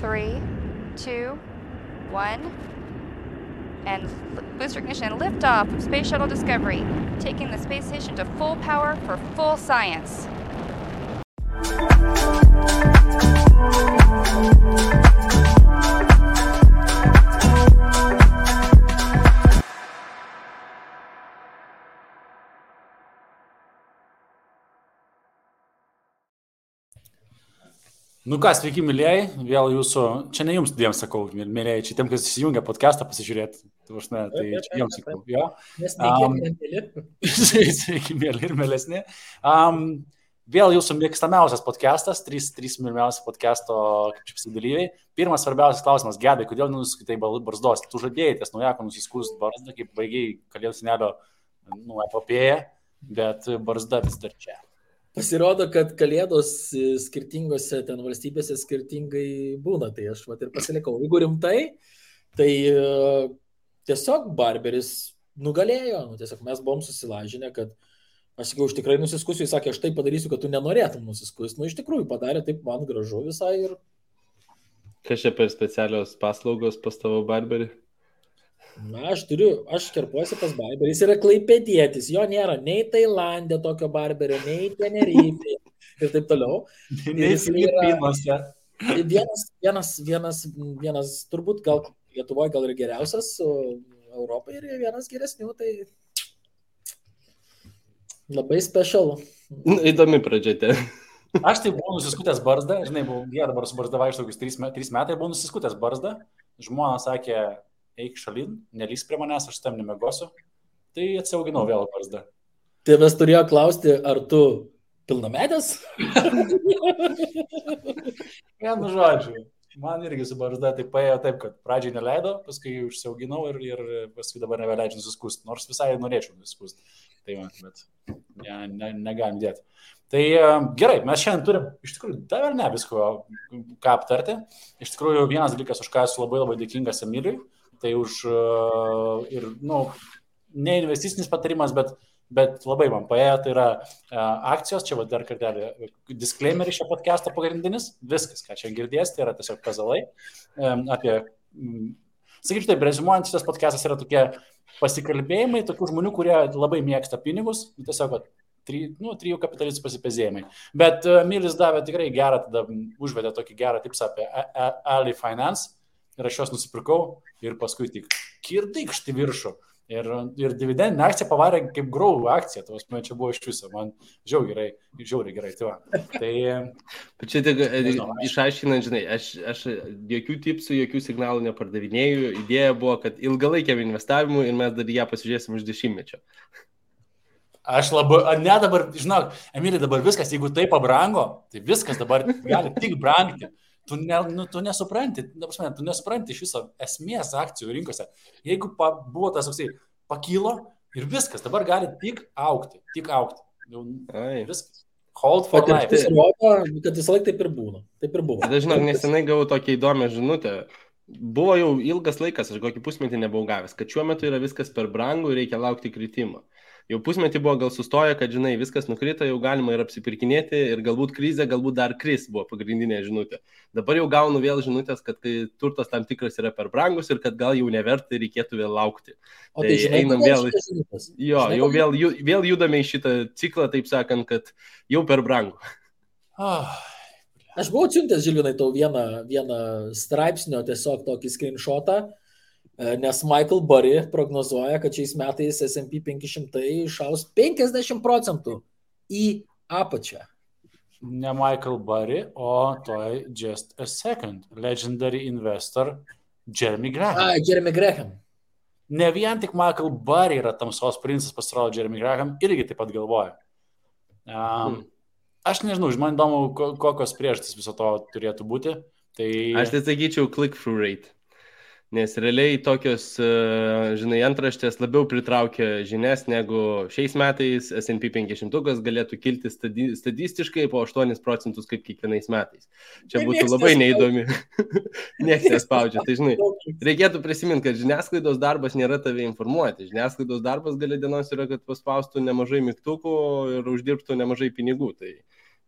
3, 2, 1. And booster ignition and liftoff of Space Shuttle Discovery, taking the space station to full power for full science. Nu ką, sveiki, mylėjai, vėl jūsų, čia ne jums dviem sakau, mylėjai, čia tiem, kas įsijungia podcastą pasižiūrėti, tai čia jums sakau, jo. Sveiki, mėly ir mėlesni. Vėl jūsų mėgstamiausias podcastas, trys mylimiausi podcasto dalyviai. Pirmas svarbiausias klausimas, Gedai, kodėl nusiskaitai barzdos? Tu žadėjai ties naujako nusiskust barzdą, kaip baigiai Kalėdų senelio epopėją, bet barzda vis dar čia. Pasirodo, kad Kalėdos skirtingose ten valstybėse skirtingai būna, tai aš ir pasilikau. Jeigu rimtai, tai tiesiog barberis nugalėjo, tiesiog mes buvom susilažinę, kad aš sakiau, aš tikrai nusiskusiu, jis sakė, aš tai padarysiu, kad tu nenorėtum nusiskusti. Iš tikrųjų padarė taip man gražu visai ir... Kas čia per specialios paslaugos pas tavo barberį? Na, aš kerpuosi pas barberį, jis yra klaipėdietis, jo nėra nei Tailandė tokio barberio, nei Tenerifė ir taip toliau. Nei Filipinuose. Vienas, turbūt gal Lietuvoje gal ir geriausias, o Europoje ir vienas geresnių, tai labai special. Įdomi pradžiate. Aš tai buvau nusiskutęs barzdą, žinai, dabar su barzda vaikštau 3 metai, buvau nusiskutęs barzdą, žmona sakė, eik šalin, nelys prie manęs, aš tam nemegosiu, tai atsiauginau vėl barzdą. Tai mes turėjo klausti, ar tu pilnametės? Vienu žodžiu, man irgi su barzda tai paėjo taip, kad pradžiai neleido, paskui užsiauginau ir paskui dabar nebeleidžiu nusiskust, nors visai norėčiau nusiskust. Tai man, bet negalim dėti. Tai gerai, mes šiandien turim, iš tikrųjų, dar ne visko, ką aptarti. Iš tikrųjų, vienas dalykas, už ką esu labai labai dėkingas Emiliui, tai už ne investicinis patarimas, bet labai man paėjo, tai yra akcijos, čia dar kartelį disclaimer iš šio podcast'o pagrindinis, viskas, ką čia girdės, tai yra tiesiog pezalai apie, sakyčiau taip, rezimuojant, šitas podcast'as yra tokie pasikalbėjimai, tokių žmonių, kurie labai mėgsta pinigus, tiesiog trijų kapitalistų pasipezėjimai. Bet Emilis davė tikrai gerą, tada užvedė tokį gerą tipsą apie Ali Finance ir aš juos nusipirkau ir paskui tik kirdykšti viršų. Ir dividendinė akcija pavarė kaip growth akcija, čia buvo iš viso, man žiauriai gerai. Tai bet čia tik išaiškinant, žinai, aš jokių tipsų, jokių signalų nepardavinėjau, idėja buvo, kad ilgalaikiam investavimui ir mes dar ją pasižiūrėsim už 10-mečio. Aš dabar, žinok, Emilija, dabar viskas, jeigu tai pabrango, tai viskas dabar gali tik brangti. Tu nesupranti, tu nesupranti iš viso esmės akcijų rinkose. Jeigu buvo tas toksai, pakilo ir viskas, dabar gali tik augti. Viskas. Hold for life. Kad visą laiką taip ir būna. Tada, žinok, nesenai gavau tokią įdomią žinutę. Buvo jau ilgas laikas, aš kokį pusmetį nebuvau gavęs, kad šiuo metu yra viskas per brangu ir reikia laukti kritimo. Jau pusmetį buvo gal sustoję, kad, žinai, viskas nukrito, jau galima ir apsipirkinėti ir galbūt krizė, galbūt dar kris buvo pagrindinė žinutė. Dabar jau gaunu vėl žinutės, kad turtas tam tikras yra per brangus ir kad gal jau neverta ir reikėtų vėl laukti. O tai žinai, einam vėl. Jo, jau vėl judame į šitą ciklą, taip sakant, kad jau per brangu. Aš buvau atsiuntęs, Žilvinai, tau vieną straipsnio tiesiog tokį screenshotą, nes Michael Burry prognozuoja, kad šiais metais S&P 500 išaus 50% į apačią. Ne Michael Burry, o toj just a second. Legendary investor Jeremy Graham. Jeremy Graham. Ne vien tik Michael Burry yra tamsos princas, pasirodo Jeremy Graham, irgi taip pat galvoja. Aš nežinau, man įdomu, kokios priežastys viso to turėtų būti. Tai... Aš tai sakyčiau click-through rate. Nes realiai tokios, žinai, antraštės labiau pritraukia žinias, negu šiais metais S&P 500 galėtų kilti statistiškai po 8% kaip kiekvienais metais. Čia būtų labai neįdomi. Niekas nespaudžia. Tai, žinai, reikėtų prisiminti, kad žiniasklaidos darbas nėra tave informuoti. Žiniasklaidos darbas gale dienos yra, kad paspaustų nemažai mygtukų ir uždirbtų nemažai pinigų. Tai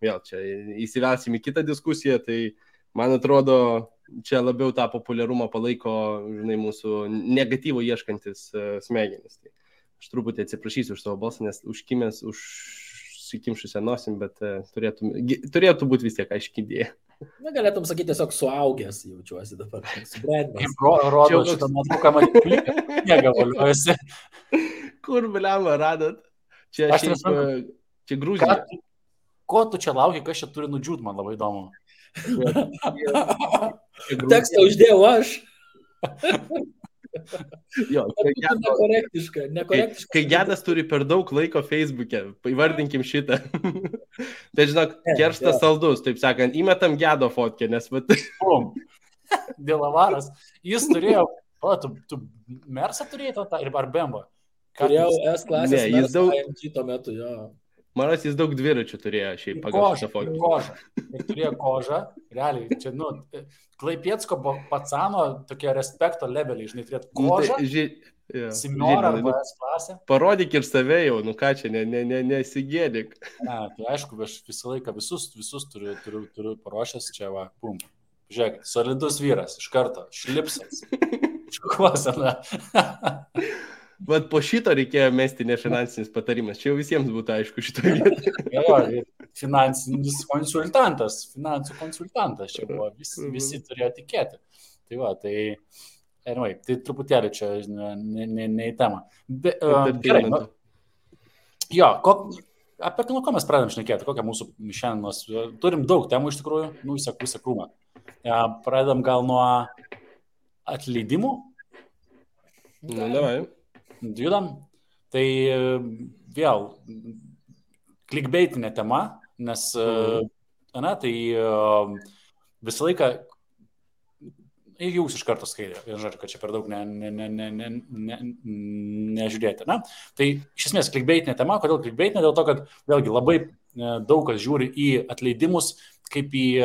vėl čia įsivelsim į kitą diskusiją, tai man atrodo, čia labiau tą populiarumą palaiko, žinai, mūsų negatyvo ieškantis smegenis. Tai aš truputį atsiprašysiu už savo balsą, nes užkimęs, užsikimšusią nosim, bet turėtų būti vis tiek aiški idėja. Na, galėtum sakyti tiesiog suaugęs, jaučiuosi dabar. Subrendęs. Rodo šitą nuotrauką, matyti pliką, negavoliuosi. Kur, bliamba, radot? Čia Gruzija. Ko tu čia lauki, kas čia turi nudžiūt, man labai įdomu. Tekstą uždėjau aš. Jo, nekorektiška. Kai Gedas turi per daug laiko Facebook'e, įvardinkim šitą. Tai žinok, kerštas saldus, taip sakant, įmetam Gedo fotkę, nes Dėlavaras. Jis turėjo, tu Mersą turėjai ar Bemba? Turėjau S-klasės Ne, jis Mersą AMG tuo metu, jo. Manas jis daug dviračių turėjo šiaip pagal šitą fotkę. Kožą. Ir turėjo kožą. Realiai, čia, Klaipiecko pacano tokie respekto leveliai, žinai, turėtų kožą. Simiorą arba S-klasę. Parodyk ir save jau, ką čia, nesigėdik. Ne, tai aišku, aš visą laiką visus turiu paruošęs, čia va, pum. Žiūrėk, solidus vyras, iš karto, šlipsas. Škuosena. Vat po šito reikėjo mesti nefinansinis patarimas. Čia jau visiems būtų aišku šitoje vietoje. Jo, finansinis konsultantas, finansų konsultantas čia buvo, visi turėjo tikėti. Tai va, anyway, tai truputėlį čia ne į temą. Gerai, jo, apie ko mes pradedam šnekėti, kokią mūsų šiandienos, turim daug temų iš tikrųjų, visą krūmą. Pradedam gal nuo atleidimų. Davai. Judam. Tai vėl klikbeitinė tema, nes tai visą laiką jūs iš karto skaitė, žodžiu, kad čia per daug nežiūrėti. Tai iš esmės klikbeitinė tema, kodėl klikbeitinė? Dėl to, kad vėlgi labai daug kas žiūri į atleidimus kaip į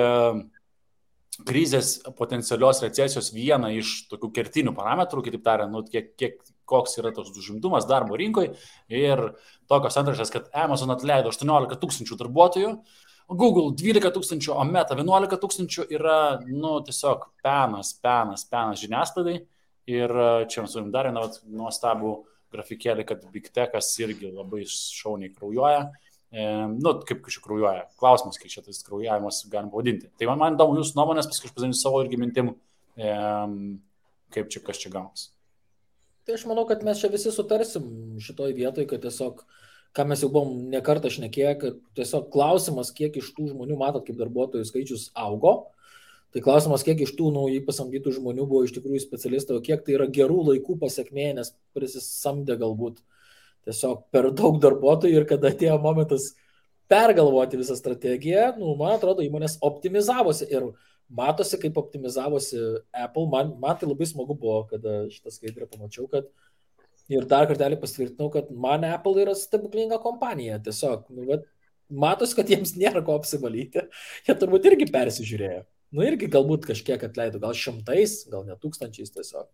krizės potencialios recesijos vieną iš tokių kertinių parametrų, kitaip tariant, koks yra toks užimtumas darbo rinkoje ir tokios antraštės, kad Amazon atleido 18 000 darbuotojų, Google 12 000, o Meta 11 000 yra, tiesiog penas žiniasklaidai. Ir čia mes turim dar vieną nuostabų grafikėlį, kad Big Techas irgi labai šauniai kraujuoja. Kaip čia kraujuoja. Klausimas, kaip čia tas kraujavimas galim pavadinti. Tai man įdomu jūsų nuomonės, paskui aš pasakysiu savo irgi mintim, kaip čia kas čia gaunas. Tai aš manau, kad mes čia visi sutarsim šitoj vietoj, kad tiesiog, ką mes jau buvom nekartą šnekėję, kad tiesiog klausimas, kiek iš tų žmonių, matot, kaip darbuotojų skaičius augo, tai klausimas, kiek iš tų naujai pasamdytų žmonių buvo iš tikrųjų specialistai, o kiek tai yra gerų laikų pasiekmė, nes prisisamdė galbūt tiesiog per daug darbuotojų ir kada atėjo momentas pergalvoti visą strategiją, man atrodo, įmonės optimizavosi ir matosi, kaip optimizavosi Apple. Man tai labai smagu buvo, kada šitą skaidrę pamačiau, kad ir dar kartelį pasitvirtinau, kad man Apple yra stebuklinga kompanija. Tiesiog, matosi, kad jiems nėra ko apsivalyti. Jie turbūt irgi persižiūrėjo. Irgi galbūt kažkiek atleido, gal 100, gal net 1000 tiesiog.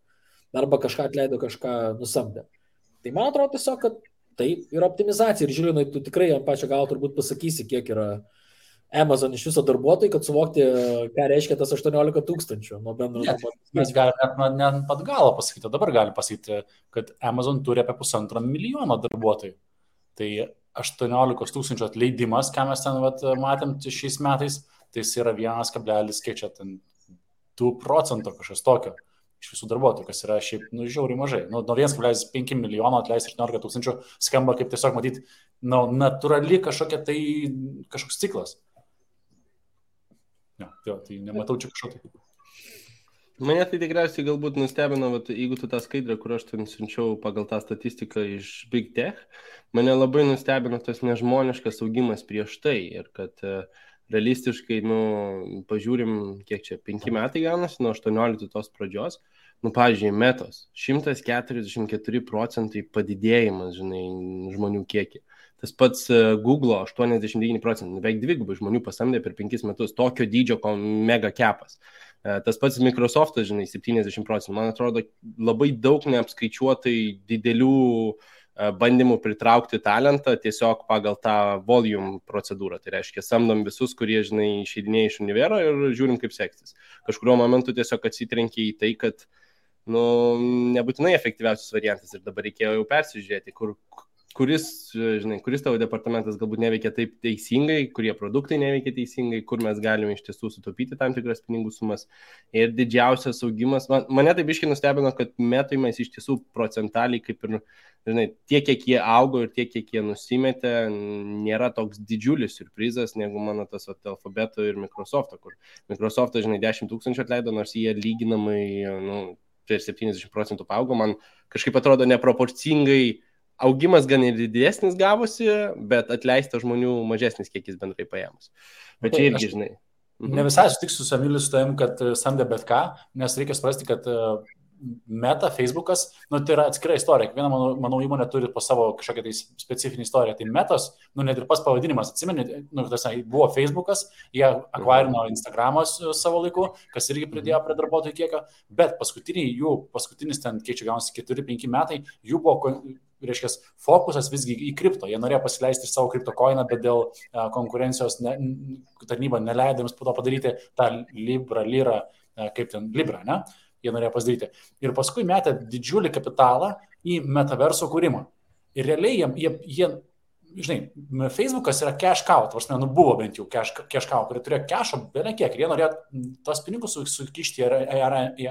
Arba kažką atleido, kažką nusamdė. Tai man atrodo tiesiog, kad tai yra optimizacija. Ir žiūrėjau, tu tikrai ant pačio galo turbūt pasakysi, kiek yra Amazon iš viso darbuotojų, kad suvokti, ką reiškia tas 18 000 nuo bendro darbuotojų. Mes galime net pat galo pasakyti, dabar galim pasakyti, kad Amazon turi apie 1,5 milijono darbuotojų. Tai 18 000 atleidimas, ką mes ten matėm šiais metais, tai jis yra 1,2% kažkas tokio iš visų darbuotojų, kas yra šiaip žiauriai mažai. Nuo 1,5 milijono atleisti 18 000 skamba kaip tiesiog matyti natūrali kažkoks ciklas. Tai nematau čia kažkokio. Mane tai tikriausiai galbūt nustebino, jeigu tu tą skaidrę, kur aš ten siunčiau pagal tą statistiką iš Big Tech, mane labai nustebino tas nežmoniškas augimas prieš tai ir kad realistiškai, pažiūrim, kiek čia, 5 metai gaunasi, nuo 18 tos pradžios, pavyzdžiui, Metos, 144% padidėjimas, žmonių kiekį. Tas pats Google 89%, beveik dvigubai žmonių pasamdė per 5 metus, tokio dydžio mega kepas. Tas pats Microsoftas, 70%. Man atrodo, labai daug neapskaičiuotai didelių bandymų pritraukti talentą tiesiog pagal tą volume procedūrą. Tai reiškia, samdom visus, kurie, žinai, išeidinėja iš univero ir žiūrim, kaip seksis. Kažkuriuo momentu tiesiog atsitrenkia į tai, kad nebūtinai efektyviausias variantas ir dabar reikėjo jau persižiūrėti, kuris tavo departamentas galbūt neveikia taip teisingai, kurie produktai neveikia teisingai, kur mes galime iš tiesų sutaupyti tam tikras pinigų sumas. Ir didžiausias augimas, mane taip biškai nustebino, kad metais iš tiesų procentaliai kaip ir, tiek, kiek jie augo ir tiek, kiek jie nusimetė, nėra toks didžiulis surprizas, negu mano tas Alphabeto ir Microsoft'o, kur Microsoft'o, 10 000 atleido, nors jie lyginamai, per 70% paaugo, man kažkaip atrodo neproporcingai. Augimas gan ir didesnis gavosi, bet atleista žmonių mažesnis kiekis bendrai paėmus. Bet čia irgi, žinai. Ne visai sutiksiu su Emiliu su tavim, kad samdė bet ką, nes reikia suprasti, kad Meta, Facebookas, tai yra atskira istorija. Kiekviena, manau, įmonė turi po savo kažkokią tai specifinį istoriją. Tai Metos, net ir pas pavadinimas, atsimeni, buvo Facebookas, jie akvarino Instagramas savo laiku, kas irgi pridėjo prie darbuotojų kiekio, bet paskutinis ten, kiek čia gaunasi 4-5 metai, jų buvo, reiškia, fokusas visgi į kripto. Jie norėjo pasileisti savo kripto koiną, bet dėl konkurencijos tarnyba neleido jiems po to padaryti tą Libra, ne? Jie norėjo pasidaryti. Ir paskui metė didžiulį kapitalą į metaverso kūrimą. Ir realiai jie Facebookas yra cash cow, buvo bent jau cash cow, kurie turėjo cash'o beveik kiek. Ir jie norėjo tos pinigus sukišti į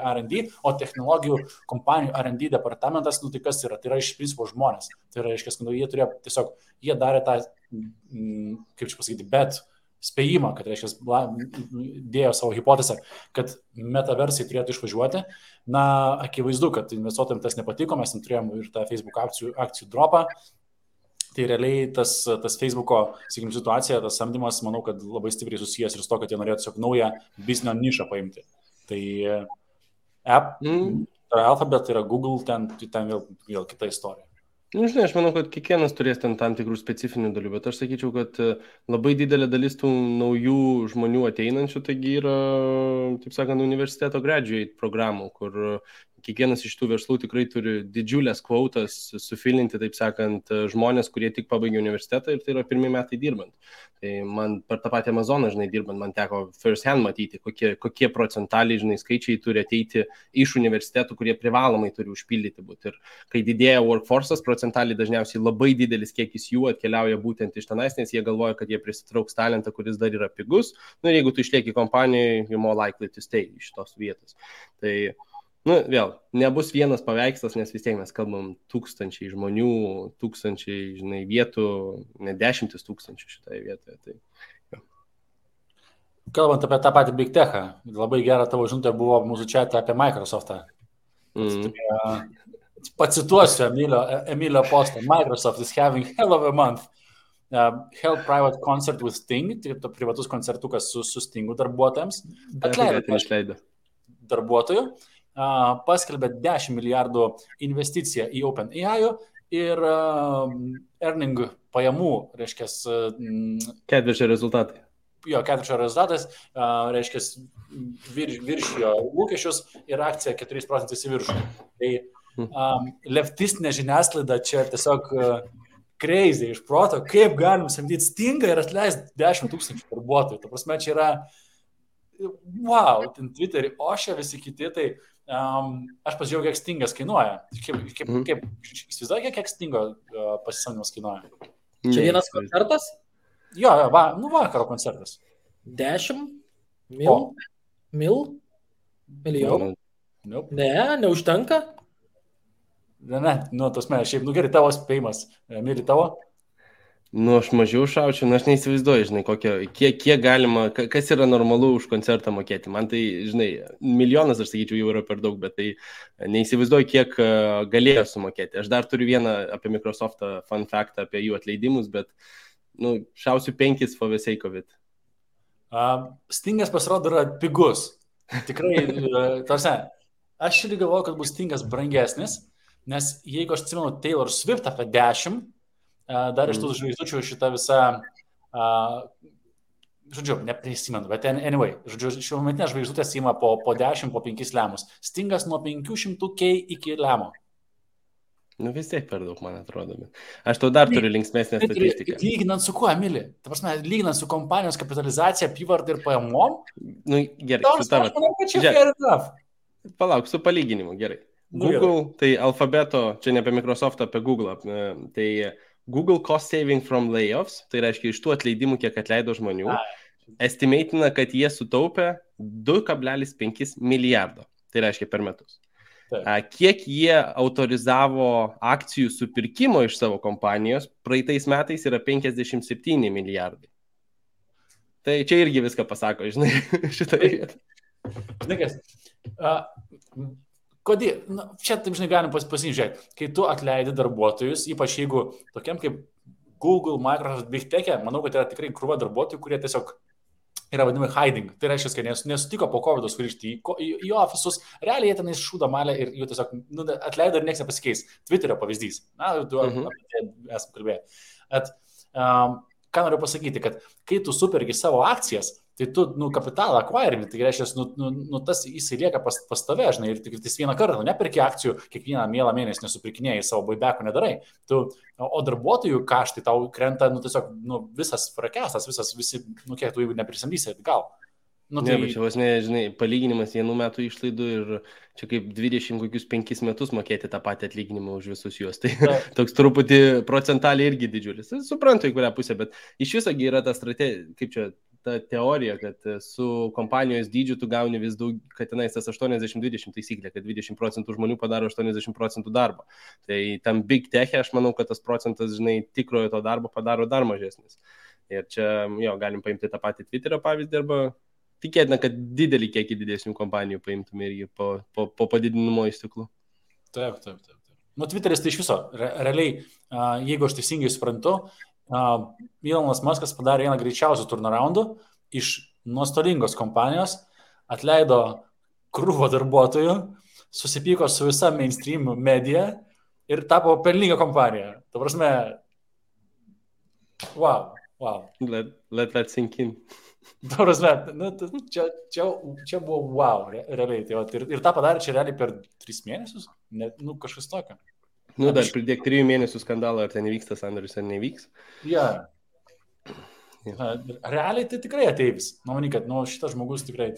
R&D, o technologijų kompanijų R&D departamentas, tai kas yra? Tai yra iš principo žmonės. Tai yra, jie turėjo tiesiog, jie darė tą, kaip čia pasakyti, bet spėjimą, kad, reiškia, dėjo savo hipotezę, kad metaversai turėtų išvažiuoti. Akivaizdu, kad investuotojams tas nepatiko, mes turėjom ir tą Facebook akcijų dropą. Tai realiai tas Facebooko, sakykim, situacija, tas samdymas, manau, kad labai stipriai susijęs ir su to, kad jie norėjo tiesiog naują biznio nišą paimti. Tai Alphabet, tai yra Google, ten vėl kita istorija. Aš manau, kad kiekvienas turės ten tam tikrų specifinių dalių, bet aš sakyčiau, kad labai didelė dalis tų naujų žmonių ateinančių, taigi yra, taip sakant, universiteto graduate programų, kur kiekvienas iš tų verslų tikrai turi didžiulės kvotas sufilinti, taip sakant, žmonės, kurie tik pabaigė universitetą ir tai yra pirmi metai dirbant. Tai man per tą patį Amazoną, dirbant, man teko first hand matyti, kokie procentaliai, skaičiai turi ateiti iš universitetų, kurie privalomai turi užpildyti būti. Ir kai didėja workforce'as, procentaliai dažniausiai labai didelis kiekis jų atkeliauja būtent iš tenais, nes jie galvoja, kad jie prisitrauks talentą, kuris dar yra pigus. Ir jeigu tu išlieki kompanijoje, you're more likely to stay iš tos vietos. Tai vėl, nebus vienas paveikslas, nes vis tiek mes kalbam tūkstančiai žmonių, tūkstančiai, vietų, ne 10 000 šitoje vietoje. Tai, Kalbant apie tą patį Big Tech'ą, labai gera tavo žinutė buvo mūsų chat'e apie Microsoft'ą. Pacituosiu Emilio postą. Microsoft is having hell of a month. Held private concert with Sting, tai privatus koncertukas su Stingu darbuotojams. Atleido darbuotojų. Paskelbė 10 milijardų investiciją į OpenAI ir earning pajamų, reiškia, ketvirčio rezultatai. Ketvirčio rezultatas, reiškia, viršijo lūkesčius ir akcija 4% į viršų. Tai leftistinė žiniasklaida čia tiesiog crazy iš proto, kaip galim samdyti Stingą ir atleisti 10 000 darbuotojų. Ta prasme, čia yra wow, ten Twitter'į ošia visi kiti, tai aš pasižiūrėjau, kiek Stingas kainuoja. Kaip įsivaizduoju, kiek Stingo pasisamdymas kainuoja? Čia vienas koncertas? Jo, vakaro koncertas. 10 milijonų? Nope. Ne, neužtenka? Ne, tasme, šiaip, gerai, tavo spėjimas. Mili tavo? Aš mažiau šaučiu, aš neįsivaizduoju, kiek galima, kas yra normalu už koncertą mokėti. Man tai, 1 milijonas, aš sakyčiau, jau yra per daug, bet tai neįsivaizduoju, kiek galėjo sumokėti. Aš dar turiu vieną apie Microsoft'ą fun fact apie jų atleidimus, bet šausiu 5 for the sake of it. Stingas pasirodo yra pigus. Tikrai, tarsi, aš irgi galvoju, kad bus Stingas brangesnis, nes jeigu aš atsimenu Taylor Swift apie 10, dar iš tų žvaigždučių šitą visą, neprisimenu, bet anyway, šiuo metinė žvaigždutės įma po 10, po 5 lemus. Stingas nuo 500K iki lemo. Nu vis tiek per daug, man atrodo. Aš tau dar turiu linksmesnę statistiką. Lyginant su kuo, Emili? Ta prasme, lyginant su kompanijos kapitalizacija, apyvarta ir pajamom? Nu, gerai, su tavo. Aš manau, kad čia fair enough. Palauk, su palyginimu, gerai. Nu, Google, tai alfabeto, čia ne apie Microsoft, apie Google. Tai Google cost saving from layoffs, tai reiškia iš tų atleidimų, kiek atleido žmonių, estimatina, kad jie sutaupė 2,5 milijardo. Tai reiškia per metus. Kiek jie autorizavo akcijų supirkimo iš savo kompanijos, praeitais metais yra 57 milijardai. Tai čia irgi viską pasako, žinai, šitoje vietoje. Žinai, kas, kodėl, čia taip, žinai, galim pasižiūrėti, kai tu atleidi darbuotojus, ypač jeigu tokiam kaip Google, Microsoft, Big Tech'e, manau, kad yra tikrai krūva darbuotojų, kurie tiesiog yra vadinami hiding. Tai reiškia, kad nesutiko po COVID grįžti į ofisus, realiai jie tenais šūda malę ir jų tiesiog atleido ir nieks nepasikeis. Twitterio pavyzdys. Na, tu apie tai esam kalbėję. Ką noriu pasakyti, kad kai tu supergi savo akcijas, tai tu kapitalą akvairini, tai reiškia, tas jisai lieka pas tave, žinai, ir tik vieną kartą, nepirki akcijų, kiekvieną mielą mėnesį nesupirkinėjai, savo buybacko nedarai. O darbuotojų kaštai tau krenta, tiesiog, visas frakestas, visi, kiek tu jeigu neprisamdysi, gal. Tai... Ne, bet čia vos ne, žinai, palyginimas vienų metų išlaidų ir čia kaip 25 metus mokėti tą patį atlyginimą už visus juos. Tai toks truputį procentaliai irgi didžiulis. Suprantu, į kurią pusę, bet iš visogi yra ta strategija, kaip čia, ta teorija, kad su kompanijos dydžiu tu gauni vis daug, kad tenais tas 80-20 taisyklė, kad 20% žmonių padaro 80% darbo. Tai tam Big Tech'e aš manau, kad tas procentas, žinai, tikrojo to darbo padaro dar mažesnis. Ir čia, galim paimti tą patį Twitterio pavyzdį arba tikėtina, kad didelį kiekį didesnių kompanijų paimtume irgi po padidinimo įstiklų. Taip. Twitteris tai iš viso, realiai, jeigu aš teisingai suprantu, Elonas Muskas padarė vieną greičiausių turnaroundų iš nuostolingos kompanijos, atleido krūvą darbuotojų, susipyko su visa mainstream medija ir tapo pelninga kompanija. Ta prasme, wow. Let that sink in. Ta prasme, čia buvo wow, realiai. Tai, ir tą padarė čia realiai per 3 mėnesius, kažkas tokio. Dar pridėk 3 mėnesių skandalą, ar ten įvyksta sandoris, ar nevyks. Realiai tai tikrai ateivis. Manau, kad šitas žmogus tikrai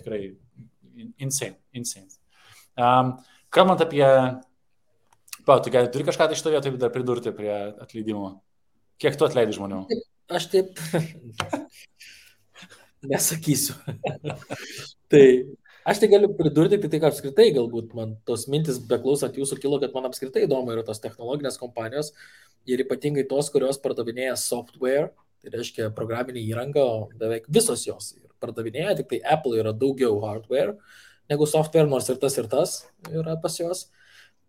insane. Kalbant apie... Tu turi kažką tai šito vietoje dar pridurti prie atleidimo? Kiek tu atleidai žmonių? Aš taip nesakysiu. Tai aš tai galiu pridurti, tai kad apskritai galbūt man tos mintis beklausant jūsų kilo, kad man apskritai įdomu yra tos technologinės kompanijos ir ypatingai tos, kurios pardavinėja software, tai reiškia programinį įrangą, beveik visos jos pardavinėja, tik tai Apple yra daugiau hardware negu software, nors ir tas yra pas jos.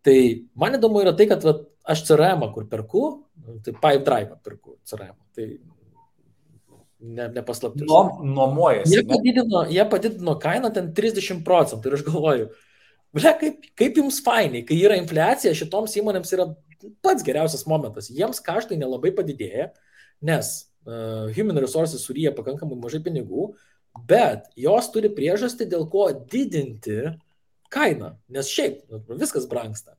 Tai man įdomu yra tai, kad aš CRM, kur perku, tai Pipedrive perku CRM, tai nepaslaptis. Nuomojasi. Jie padidino kainą ten 30% ir aš galvoju, kaip jums fainai, kai yra infliacija, šitoms įmonėms yra pats geriausias momentas. Jiems kaštai nelabai padidėja, nes human resources suryja pakankamai mažai pinigų, bet jos turi priežastį, dėl ko didinti kainą, nes šiaip viskas brangsta.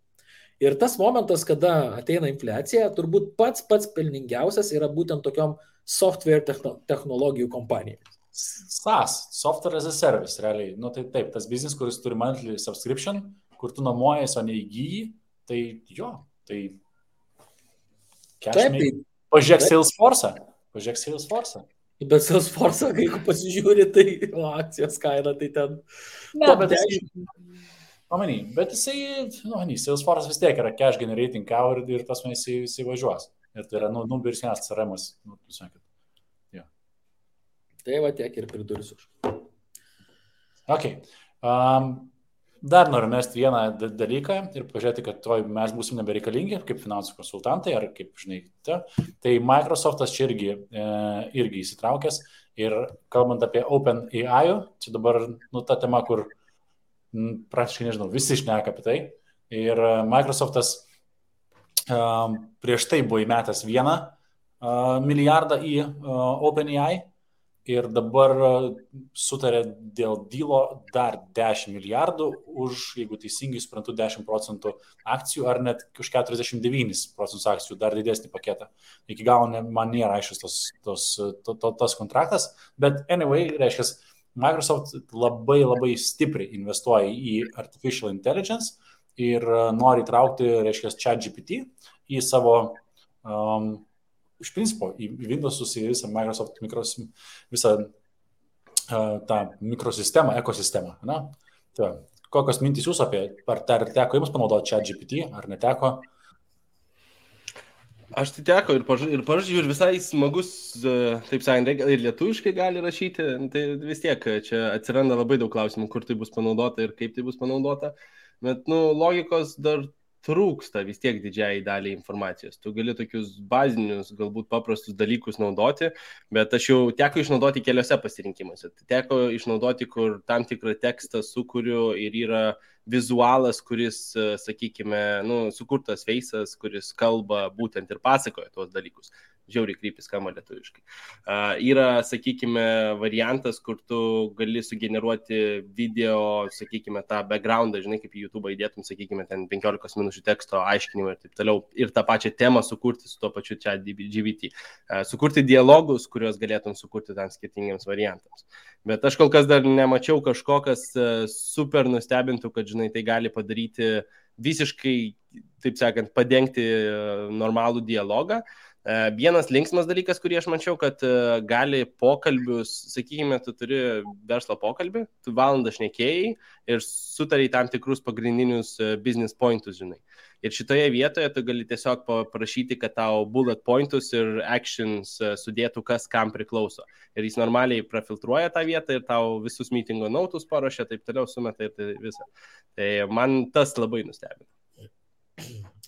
Ir tas momentas, kada ateina infliacija, turbūt pats pelningiausias yra būtent tokiom software technologijų kompanijai. SaaS, Software as a Service, realiai. Tai taip, tas biznis, kuris turi monthly subscription, kur tu nuomojasi, o neįgyji, tai tai... Pažiūrėk Salesforce. Bet Salesforce, kai pasižiūri, tai akcijos kaina, tai ten... Bet jisai, Salesforce vis tiek yra cash generating cow ir tas man jisai važiuos. Ir tai yra, birsienas CRM-as. Tai va tiek ir pridursiu. Ok. Dar noriu mesti vieną dalyką ir pažiūrėti, kad mes būsim nebereikalingi kaip finansų konsultantai ar kaip, žinai, tai Microsoftas čia irgi įsitraukęs ir kalbant apie OpenAI, čia dabar ta tema, kur praktiškai, nežinau, visi šneka apie tai ir Microsoftas prieš tai buvo įmetęs 1 milijardą į OpenAI ir dabar sutarė dėl dylo dar 10 milijardų už, jeigu teisingai suprantu, 10% akcijų ar net už 49% akcijų, dar didesnį paketą. Iki galo man nėra aiškus tas kontraktas, bet anyway, reiškia, Microsoft labai stipriai investuoja į artificial intelligence ir nori įtraukti, reiškia, ChatGPT į savo iš principo, į Windows'us, į visą Microsoft visą tą mikrosistemą, ekosistemą. Na? Tai, kokios mintys jūs apie, ar teko jums panaudoti ChatGPT, ar neteko? Aš tai teko ir pažiūrėjau, ir visai smagus, taip sakant, ir lietuviškai gali rašyti, tai vis tiek čia atsiranda labai daug klausimų, kur tai bus panaudota ir kaip tai bus panaudota, bet, logikos dar trūksta vis tiek didžiai daliai informacijos. Tu gali tokius bazinius, galbūt paprastus dalykus naudoti, bet aš jau teko išnaudoti keliose pasirinkimuose. Teko išnaudoti, kur tam tikrą tekstą sukuriu ir yra vizualas, kuris, sakykime, sukurtas veisas, kuris kalba būtent ir pasakoja tuos dalykus. Žiauriai krypis skamba lietuviškai. Yra, sakykime, variantas, kur tu gali sugeneruoti video, sakykime, tą backgroundą, žinai, kaip į YouTube įdėtum, sakykime, ten 15 minučių teksto aiškinimą ir taip toliau, ir tą pačią temą sukurti su tuo pačiu ChatGPT. Sukurti dialogus, kuriuos galėtum sukurti tam skirtingiams variantams. Bet aš kol kas dar nemačiau kažko, kas super nustebintų, kad, žinai, tai gali padaryti visiškai, taip sakant, padengti normalų dialogą. Vienas linksmas dalykas, kurį aš mačiau, kad gali pokalbius, sakykime, tu turi verslo pokalbį, tu valandą šnekėjai ir sutariai tam tikrus pagrindinius business pointus, žinai. Ir šitoje vietoje tu gali tiesiog paprašyti, kad tau bullet pointus ir actions sudėtų, kas kam priklauso. Ir jis normaliai prafiltruoja tą vietą ir tau visus meetingo notus paruošia, taip toliau sumeta ir tai visą. Tai man tas labai nustebino.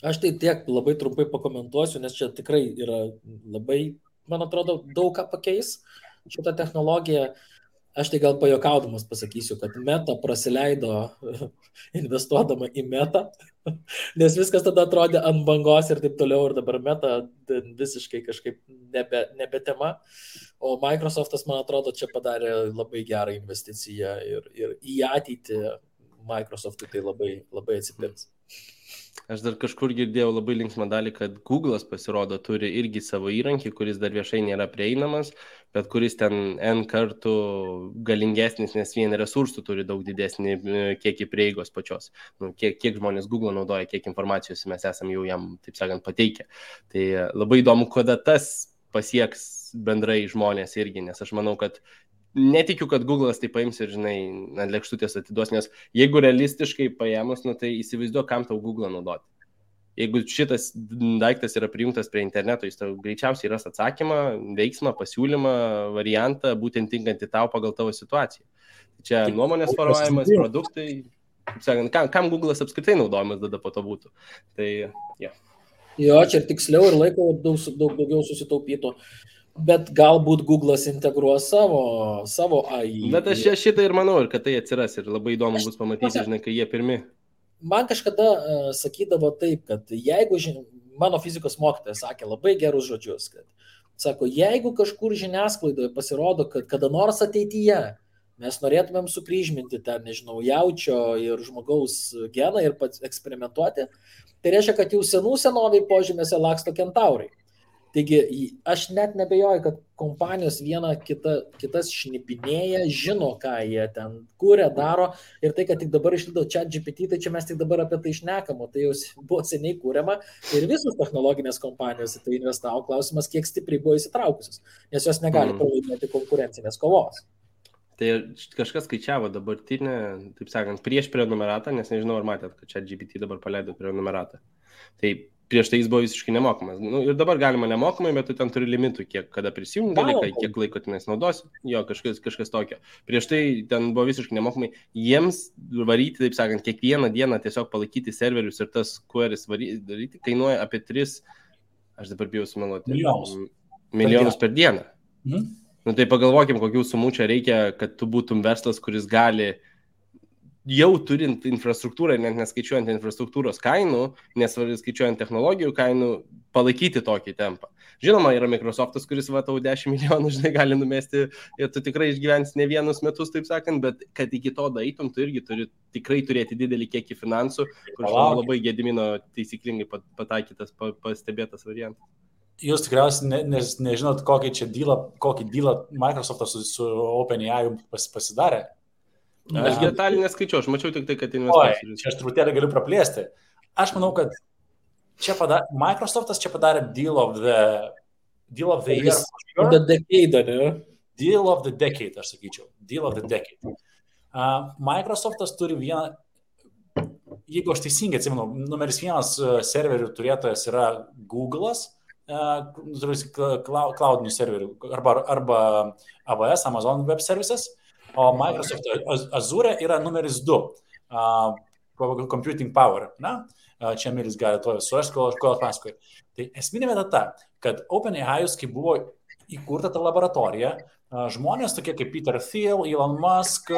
Aš tai tiek labai trumpai pakomentuosiu, nes čia tikrai yra labai, man atrodo, daug ką pakeis šitą technologiją. Aš tai gal pajokaudamas pasakysiu, kad Meta prasileido investuodama į Meta, nes viskas tada atrodė ant bangos ir taip toliau, ir dabar Meta visiškai kažkaip nebe tema. O Microsoftas, man atrodo, čia padarė labai gerą investiciją ir į ateitį Microsoftui tai labai atsipirks. Aš dar kažkur girdėjau labai linksmą dalį, kad Google'as pasirodo turi irgi savo įrankį, kuris dar viešai nėra prieinamas, bet kuris ten N kartų galingesnis, nes vien resursų turi daug didesnį kiekį prieigos pačios. Kiek žmonės Google naudoja, kiek informacijos mes esam jau jam, taip sakant, pateikę. Tai labai įdomu, kada tas pasieks bendrai žmonės irgi, nes aš manau, kad netikiu, kad Google'as tai paims ir, žinai, ant lėkštutės atiduos, nes jeigu realistiškai paėmus, tai įsivaizduok, kam tau Google'ą naudoti. Jeigu šitas daiktas yra prijungtas prie interneto, jis tau greičiausiai ras atsakymą, veiksmą, pasiūlymą, variantą, būtent tinkantį tau pagal tavo situaciją. Čia nuomonės formavimas, produktai, kaip sakant, kam Google'as apskritai naudojamas tada po to būtų. Tai, ja. Jo, čia ir tiksliau ir laiko daug daugiau susitaupytų. Bet galbūt Google'as integruos savo AI. Bet aš šitą ir manau, ir kad tai atsiras, ir labai įdomu bus pamatyti, žinai, kai jie pirmi. Man kažkada sakydavo taip, kad jeigu, mano fizikos mokytojas sakė labai gerus žodžius, kad, sako, jeigu kažkur žiniasklaidoje pasirodo, kad kada nors ateityje mes norėtumėm sukryžminti ten, nežinau, jaučio ir žmogaus geną ir eksperimentuoti, tai reiškia, kad jau senoviai požemėse laksto kentaurai. Taigi, aš net nebejoju, kad kompanijos viena kitas šnipinėja, žino, ką jie ten kūrė, daro, ir tai, kad tik dabar išlido ChatGPT, tai čia mes tik dabar apie tai šnekam, o tai jau buvo seniai kūriama ir visos technologinės kompanijos į tai investavo, klausimas, kiek stipriai buvo įsitraukusios, nes jos negali pralaimėti konkurencinės kovos. Tai kažkas skaičiavo dabartinę, taip sakant, prieš prenumeratą, nes nežinau, ar matėt, kad ChatGPT dabar paleido prenumeratą. Tai prieš tai jis buvo visiškai nemokamas. Ir dabar galima nemokamai, bet tu ten turi limitų, kada prisijungi, kiek laiko tenais naudosi. Jo, kažkas tokio. Prieš tai ten buvo visiškai nemokamai. Jiems varyti, taip sakant, kiekvieną dieną tiesiog palaikyti serverius ir tas queries daryti, kainuoja apie 3, aš dabar bijau sumeluoti, milijonus per dieną. Tai pagalvokim, kokių sumų čia reikia, kad tu būtum verslas, kuris gali jau turint infrastruktūrą, net neskaičiuojant infrastruktūros kainų, nes skaičiuojant technologijų kainų, palaikyti tokį tempą. Žinoma, yra Microsoftas, kuris va tau 10 milijonų, žinai, gali numesti ir tu tikrai išgyvensi ne vienus metus, taip sakant, bet kad iki to daeitum, tu irgi turi tikrai turėti didelį kiekį finansų, kur labai Gedimino taisyklingai pataikytas, pastebėtas variantas. Jūs tikriausiai nežinot, kokį dealą Microsoftas su OpenAI pasidarė. Aš detalį neskaičiau, aš mačiau tik tai, kad investuosiu. Čia aš truputėlį galiu praplėsti. Aš manau, kad Microsoftas čia padarė deal of the year. The decade, ne? Deal of the decade, aš sakyčiau. Deal of the decade. Microsoftas turi vieną, jeigu aš teisingai atsimenu, numeris 1 serverių turėtojas yra Google'as, cloudinių serverių arba AWS, Amazon Web Services, o Microsoft Azure yra numeris 2 computing power. Na? Čia Milis gali to surasti, ko atpasakoju. Tai esminė vieta ta, kad OpenAI, kai buvo įkurta ta laboratorija, žmonės tokie kaip Peter Thiel, Elon Musk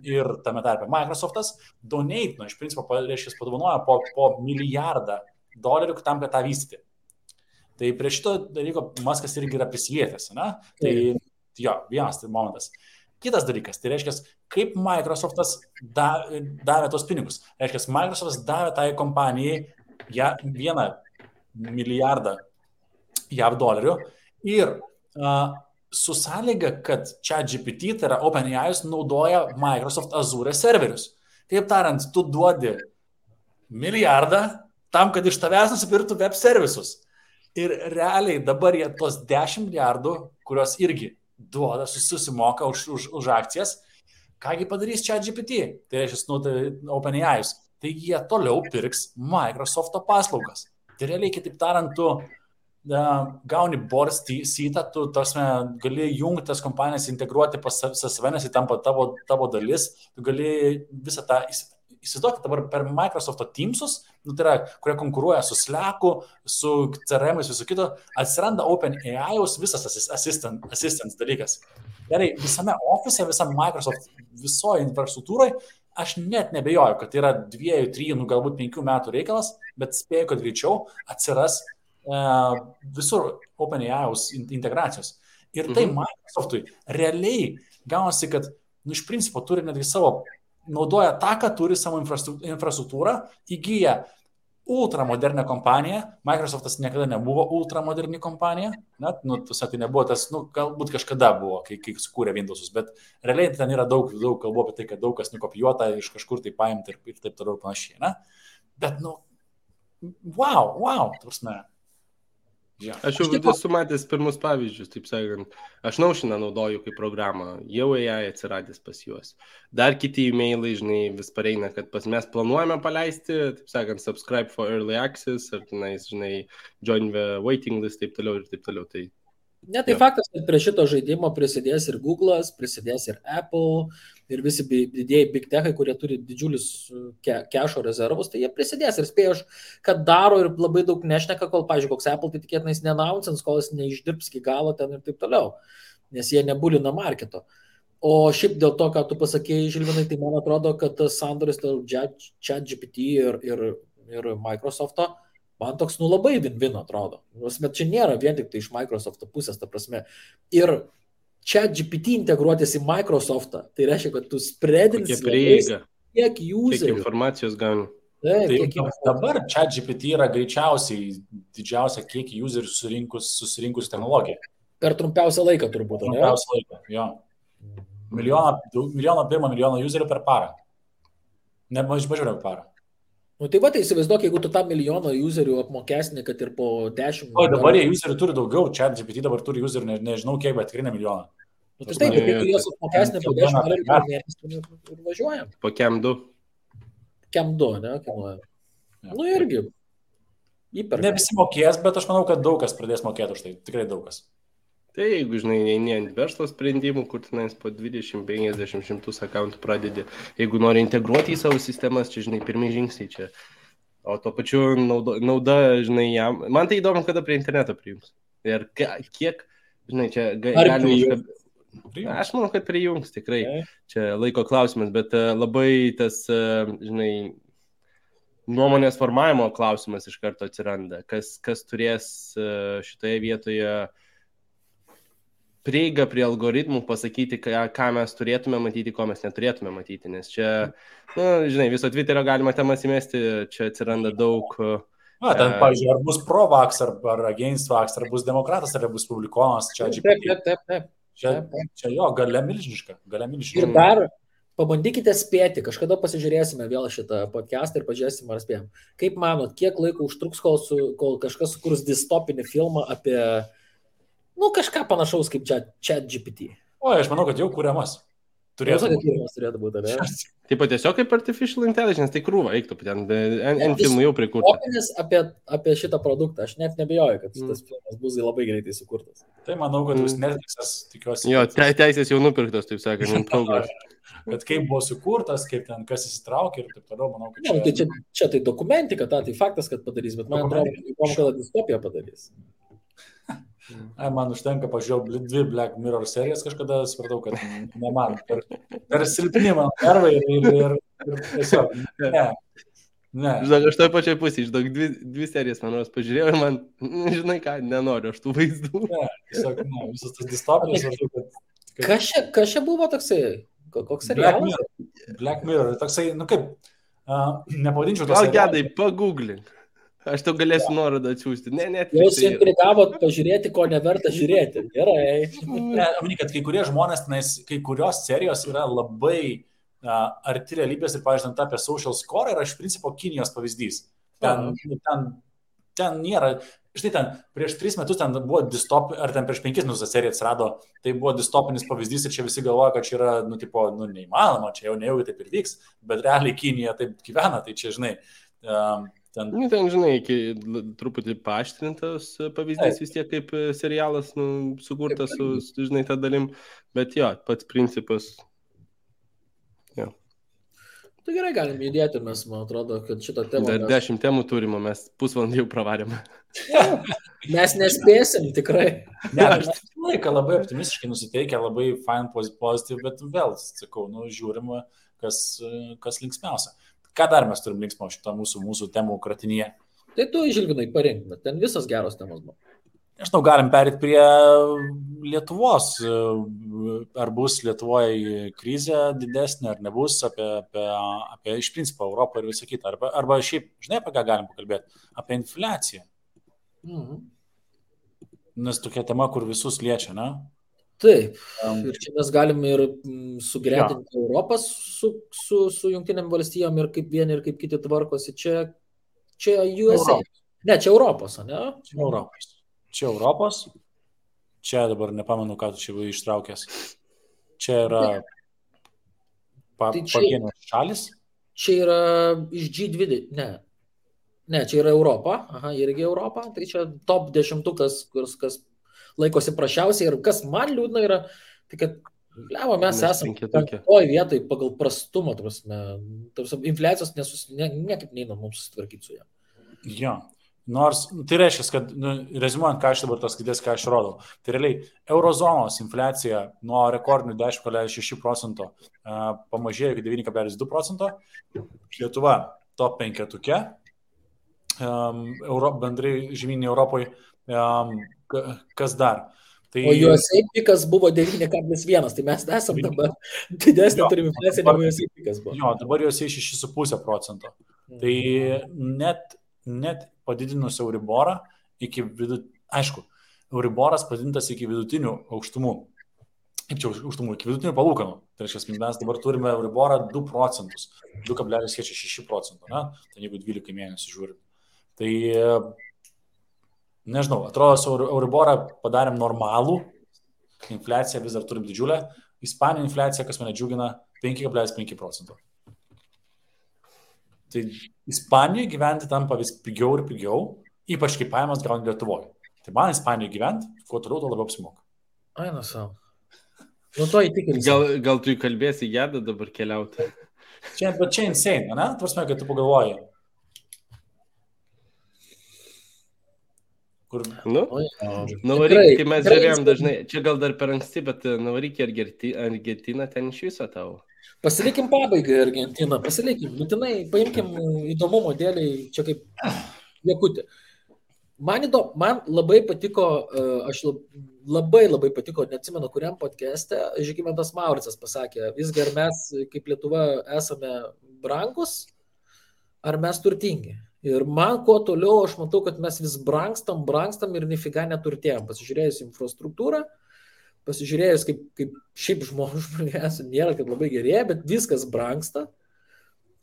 ir tame tarpe Microsoftas donate, iš principo, padovanoja po $1 milijardą tam, kad tą vystyti. Tai prie šito dalyko Muskas irgi yra prisilietęs, ne? Tai jo, vienas tai momentas. Kitas dalykas, tai reiškia, kaip Microsoftas davė tos pinigus. Reiškia, Microsoftas davė tai kompanijai $1 milijardą JAV dolerių ir su sąlyga, kad ChatGPT, tai yra OpenAI, naudoja Microsoft Azure serverius. Taip tariant, tu duodi milijardą tam, kad iš tavęs nusipirktų web servisus. Ir realiai dabar jie tos 10 milijardų, kurios irgi duoda, susimoka už akcijas, kągi padarys ChatGPT, tai reiškia OpenAI, tai jie toliau pirks Microsoft'o paslaugas. Tai realiai, kitaip tariant, tu gauni board seatą, tu gali jungti tas kompanijas, integruoti pas save, nes jį tampa tavo dalis, tu gali visą tą įsivaizduokit dabar per Microsoft'o Teamsus, tai yra, kurie konkuruoja su Slack'u, su CRM'ais, visu kito, atsiranda OpenAI'aus visas assistance dalykas. Gerai, visame office, visam Microsoft, visoje infrastruktūroje, aš net nebejoju, kad tai yra 2, 3, galbūt 5 metų reikalas, bet spėju, kad greičiau atsiras visur OpenAI'aus integracijos. Ir tai Microsoft'ui realiai gaunasi, kad iš principo turi netgi naudoja tą, ką turi savo infrastruktūrą, įgyja ultramodernią kompaniją. Microsoftas niekada nebuvo ultramoderni kompanija, tai nebuvo tas, galbūt kažkada buvo, kai sukūrė Windows'us, bet realiai ten yra daug kalbų apie tai, kad daug kas nukopijuota iš kažkur tai paimti ir taip toliau panašiai. Ne? Bet, wow, ta prasme. Ja. Aš jau esu matęs pirmus pavyzdžius, taip sakant. Aš Notioną naudoju kaip programą, jau AI atsiradęs pas juos. Dar kiti e-mailai, žinai, vis pareina, kad mes planuojame paleisti, taip sakant, subscribe for early access, ar tenais, žinai, join the waiting list, taip toliau ir taip toliau. Tai tai faktas, kad prie šito žaidimo prisidės ir Google'as, prisidės ir Apple, ir visi didieji big techai, kurie turi didžiulius kešo rezervus, tai jie prisidės ir spėjau, kad daro ir labai daug nešneka, kol, pavyzdžiui, koks Apple, tai tikėtinais neannouncins, kol jis neišdirbs iki galo ten ir taip toliau, nes jie nebulina marketo. O šiaip dėl to, ką tu pasakėjai, Žilvinai, tai man atrodo, kad tas sandoris ChatGPT ir Microsoft'o, man toks, labai win-win atrodo. Bet čia nėra vien tik tai iš Microsoft'o pusės, ta prasme. Ir ChatGPT integruotis į Microsoft'ą, tai reiškia, kad tu spreadinsi kiek userių. Kiek informacijos gauni. Dabar ChatGPT yra greičiausiai didžiausia kiek userių susirinkus technologiją. Per trumpiausią laiką turbūt, ne? Trumpiausią laiką, jo. Milijoną userių per parą. Ne mažiau negu parą. Tai va, tai įsivaizduok, jeigu tu tą milijoną userių apmokesni, kad ir po 10... O dabar jie userių turi daugiau, ChatGPT dabar turi userių, nežinau kiek, bet tikrai ne milijoną. Tai taip, jeigu juos apmokesni po 10 mėnesių ir važiuojam. Po Cam 2. Cam 2, ne? Irgi. Įperka. Ne visi mokės, bet aš manau, kad daug kas pradės mokėti už tai, tikrai daug kas. Tai jeigu, žinai, eini ant verslo sprendimų, kur tenais po 20, 50, 100 akauntų pradedi, jeigu nori integruoti į savo sistemas, čia, žinai, pirmie žingsniai čia. O to pačiu nauda, žinai, jam. Man tai įdomu, kada prie interneto prijungs. Ir kiek, žinai, čia galima... Aš manau, kad prijungs, tikrai. Čia laiko klausimas, bet labai tas, žinai, nuomonės formavimo klausimas iš karto atsiranda. Kas turės šitoje vietoje prieigą prie algoritmų, pasakyti, ką mes turėtume matyti, ko mes neturėtume matyti. Nes čia, žinai, viso Twitterio galima temas įmesti, čia atsiranda daug... Ten, pavyzdžiui, ar bus pro-vax, ar against vax, ar bus demokratas, ar bus publikonas, čia GPT. Taip. Čia jo, galia milžiniška. Ir dar pabandykite spėti, kažkada pasižiūrėsime vėl šitą podcastą ir pažiūrėsime, ar spėjom. Kaip manot, kiek laiko užtruks, kol kažkas sukurs distopinį filmą apie, kažką panašaus kaip ChatGPT? Aš manau, kad jau kuriamas. Turėtų būti, ne? Taip pat tiesiog kaip artificial intelligence, tai krūva, eiktų, ten filmų jau prikurta. Apie šitą produktą, aš net nebejoju, kad tas filmas bus labai greitai sukurtas. Tai manau, kad bus Netflixas, tikiuosi. Jo, teisės jau nupirktos, taip sakant, kad kaip buvo sukurtas, kaip ten kas įsitraukė ir taip toliau, manau, kad čia tai dokumentika, tai faktas, kad padarys, bet man atrodo, kad distopiją padarys. Man užtenka pažiūrėjau 2 Black Mirror serijas kažkada, supratau, kad ne man. Per silpni mano nervai ir tiesiog, ne. Žinok, aš toj pačioj pusėje, žinok, 2 serijas manos pažiūrėjau ir man, žinai ką, nenoriu aš tų vaizdų. Ne, tiesiog, visas tas distopijos. Kas čia buvo toksai? Koks serialas? Black Mirror, toksai, kaip, nepavadinčiau tos serialas. Gal gedai, pagooglink. Aš tau galėsiu nuorodą atsiųsti. Jūs intrigavot pažiūrėti, ko neverta žiūrėti. Gerai. Kad kai kurie žmonės, kai kurios serijos yra labai arti realybės ir, pavyzdžiui, apie social score yra iš principo Kinijos pavyzdys. Ten nėra, štai ten prieš 3 metus ten buvo distopinis, ar ten prieš 5 metus ta serija atsirado, tai buvo distopinis pavyzdys ir čia visi galvoja, kad čia yra, neįmanoma, čia jau nejaugi taip ir vyks, bet realiai Kinija taip gyvena, tai čia, žinai, ten, žinai, truputį paaštrintas pavyzdys vis tiek kaip serialas sukurtas su, žinai, tą dalim, bet jo, pats principas. Jo. Tai gerai, galim judėti, mes, man atrodo, kad šitą temą... Dar 10 temų turime, mes pusvalandį jau pravarėme. Mes nespėsim, tikrai. Aš laiką labai optimistiškai nusiteikę, labai fine, positive, bet vėl, sakau, žiūrim, kas linksmiausia. Ką dar mes turim linksmo šitą mūsų temų kratinyje? Tai tu, Žilvinai, parink, bet ten visas geros temos buvo. Nežinau, galim perėti prie Lietuvos. Ar bus Lietuvoje krizė didesnė, ar nebus, apie iš principo Europą ir visą kitą. Arba šiaip, žinai, apie ką galim pakalbėti? Apie infliaciją. Nes tokia tema, kur visus liečia, ne? Taip, ir čia mes galim ir sugretinti Europą su Jungtinėm valstijom ir kaip vieni ir kaip kiti tvarkosi. Čia USA. Ne, čia Europos, ne? Čia Europos. Čia dabar nepamenu, ką tu čia ištraukęs. Čia yra pavienės šalis. Čia yra iš G20. Ne, čia yra Europa. Aha, irgi Europa. Tai čia top 10, kas laikosi prašiausiai ir kas man liūdna yra, tai kad mes esame 5 vietoj pagal prastumą, infliacijos niekaip neina mums susitvarkyti su ją. Jo, nors tai reiškia, kad, rezimuojant, ką aš dabar tos skaitės, ką aš rodau, tai realiai eurozonos infliacija nuo rekordinių 10,6% pamažėjo iki 9,2%, Lietuva top 5, bendrai žemyninė Europoje. Kas dar? Tai... O USA pikas buvo 9,1, tai mes esam dabar didesnė turim infliaciją, negu USA pikas buvo. Jo, dabar USA 6,5%. Tai net padidinus Euriborą iki aišku, Euriboras padidintas iki vidutinių aukštumų. Kaip čia aukštumų? Iki vidutinių palūkanų. Tai reiškia, mes dabar turime Euriborą 2%, 2,6%, ne? Tai jeigu 12 mėnesių žiūrim. Tai nežinau, atrodo, su Euriborą padarėm normalų, infliaciją vis dar turim didžiulę, Ispanijos infliacija, kas mane džiugina, 5,5%. Tai Ispanijoje gyventi tampa vis pigiau ir pigiau, ypač kai pajamas gauni Lietuvoje. Tai man Ispanijoje gyventi, kuo toliau, to labiau apsimoka. Ai, savo. To įtikinti. Gal tu įkalbėsi Gedą dabar keliauti? Bet čia insane, ne? Tvarsime, kad tu pagalvoji. Nuvaryk, kai mes žiūrėjom dažnai, čia gal dar per anksti, bet nuvaryk į Argentiną, ten iš viso tavo. Pasilikim pabaigai Argentiną, būtinai, paimkim įdomumo dėliai, čia kaip Jakutė. Man labai patiko, labai patiko, neatsimenu, kuriam podcast'e Žygimantas Mauricas pasakė, visgi ar mes kaip Lietuva esame brangus, ar mes turtingi. Ir man kuo toliau, aš matau, kad mes vis brangstam ir nifiga neturtėjom. Pasižiūrėjus infrastruktūrą, pasižiūrėjus, kaip šiaip žmonės nėra, kad labai gerėja, bet viskas brangsta.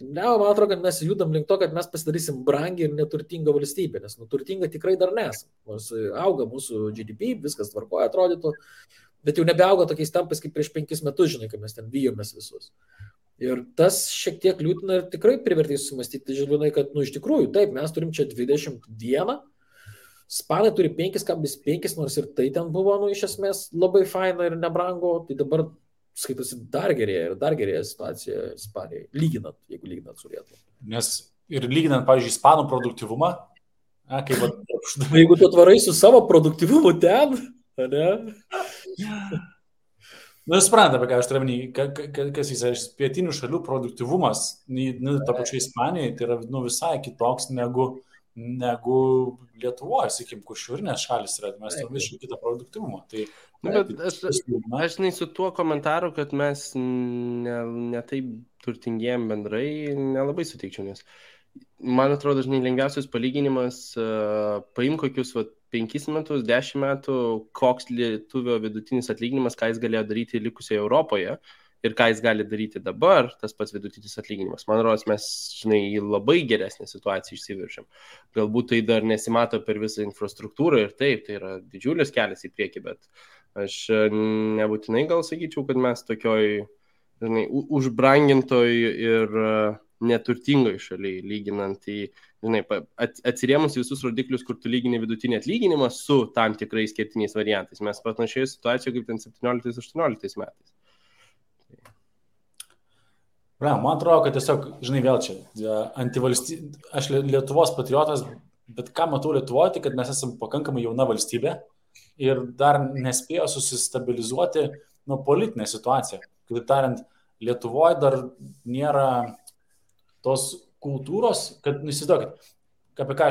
Man atrodo, kad mes judam link to, kad mes pasidarysim brangiai ir neturtingą valstybę, nes turtinga tikrai dar nesam. Nors auga mūsų GDP, viskas tvarkoja atrodytų, bet jau nebeauga tokiais tempais kaip prieš 5 metus, žinai, kai mes ten bijomės visus. Ir tas šiek tiek liūdina ir tikrai privertė sumastyti, žinai, kad, iš tikrųjų, taip, mes turim čia 21, Ispanai turi 5,5, nors ir tai ten buvo, iš esmės, labai faina ir nebrango, tai dabar skaitosi dar gerėja situacija Ispanijai, jeigu lyginant su Lietuva. Nes ir lyginant, pavyzdžiui, ispanų produktyvumą, jeigu tu atvarai su savo produktyvumu ten, ne? Supranta, apie ką aš turiu minį, kas jis pietinių šalių produktyvumas, ta pačia Ispanijai, tai yra visai kitoks negu Lietuvoje, sakykim, kur šiaurinės šalis yra, mes turime visiškai kitą produktyvumą. Tai, aš su tuo komentaru, kad mes ne taip turtingėjom bendrai, nelabai sutikčiau, nes man atrodo, žinai, lengviausias palyginimas, paim kokius 5 metus, 10 metų, koks lietuvio vidutinis atlyginimas, ką jis galėjo daryti likusioje Europoje ir ką jis gali daryti dabar, tas pats vidutinis atlyginimas. Man atrodo, mes, žinai, į labai geresnę situaciją išsiviršiam. Galbūt tai dar nesimato per visą infrastruktūrą ir taip, tai yra didžiulis kelias į priekį, bet aš nebūtinai gal sakyčiau, kad mes tokioj, žinai, užbrangintoj ir neturtingoj šaliai, lyginant į, žinai, atsirėmus visus rodiklius, kur tu lygini vidutinį atlyginimą su tam tikrais kertiniais variantais. Mes panašioje situacijoje kaip ten 17-18 metais. Man atrodo, kad tiesiog, žinai, vėl čia, aš Lietuvos patriotas, bet ką matau Lietuvoje, tai kad mes esame pakankamai jauna valstybė ir dar nespėjo susistabilizuoti politinę situaciją. Kitaip tariant, Lietuvoje dar nėra tos kultūros, kad, įsivaizduokit, apie ką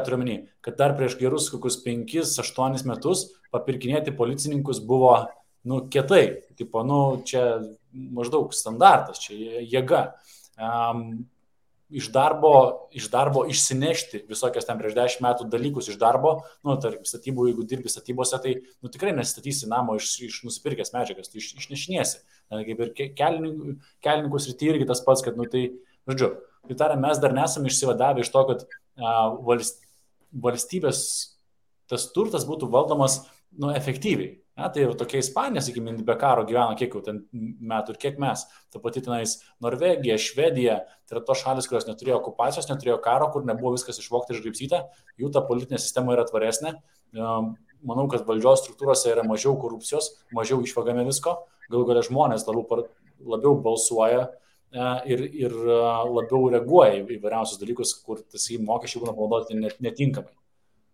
turiu minį, kad dar prieš gerus kokius 5-8 metus papirkinėti policininkus buvo, kietai, tipo, čia maždaug standartas, čia jėga. Iš darbo išsinešti visokias ten prieš 10 metų dalykus iš darbo, tarkim, statybų, jeigu dirbi statybose, tai tikrai nesistatysi namo iš nusipirkęs medžiagas, tu išnešinėsi. Kaip ir kelininkus rytį irgi tas pats, kad, tai, žodžiu, tai tariant, mes dar nesame išsivadavę iš to, kad valstybės tas turtas būtų valdomas, efektyviai. Tai ir tokia Ispanija, sakykime, be karo gyvena kiek jau ten metų ir kiek mes. Ta pati tenais Norvegija, Švedija, tai yra tos šalis, kurios neturėjo okupacijos, neturėjo karo, kur nebuvo viskas išvogta ir išgraibstyta, jų ta politinė sistema yra tvaresnė. Manau, kad valdžios struktūrose yra mažiau korupcijos, mažiau išvagame visko, galų galia žmonės labiau balsuoja ir labiau reaguoja į įvairiausius dalykus, kur tas mokesčiai būna panaudoti netinkamai.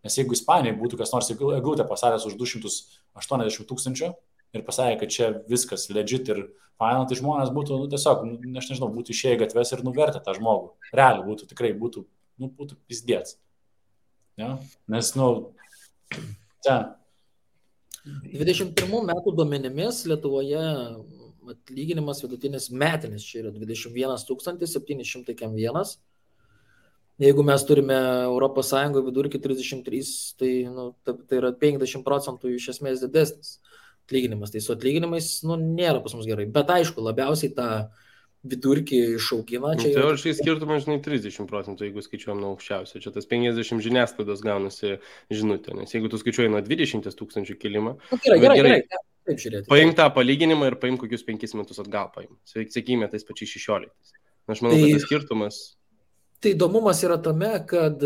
Nes jeigu Ispanijai būtų kas nors eglutę pasakęs už 280 000 ir pasakė, kad čia viskas legit ir faina, tai žmonės būtų, tiesiog, aš nežinau, būtų išėję į gatves ir nuvertę tą žmogų. Realiai būtų, tikrai būtų pizdėts. Ja? Nes, ten. 21 metų duomenimis Lietuvoje atlyginimas vidutinis metinis čia yra 21 701. Jeigu mes turime Europos Sąjungoje vidurkį 33, tai, tai yra 50% iš esmės didesnis atlyginimas. Tai su atlyginimais nėra pas mus gerai. Bet aišku, labiausiai tą vidurkį išaugina. Teoriškai skirtumas, žinai, 30%, jeigu skaičiuojam nuo aukščiausio. Čia tas 50 žiniasklaidos gaunasi žinutė. Nes jeigu tu skaičiuoji nuo 20 000 kilimą, gerai. Taip žiūrėti. Paim tą palyginimą ir paim kokius 5 metus atgal paim. Sakykime, tais pačiais 16. Aš manau, kad tas skirtumas... Tai įdomumas yra tame, kad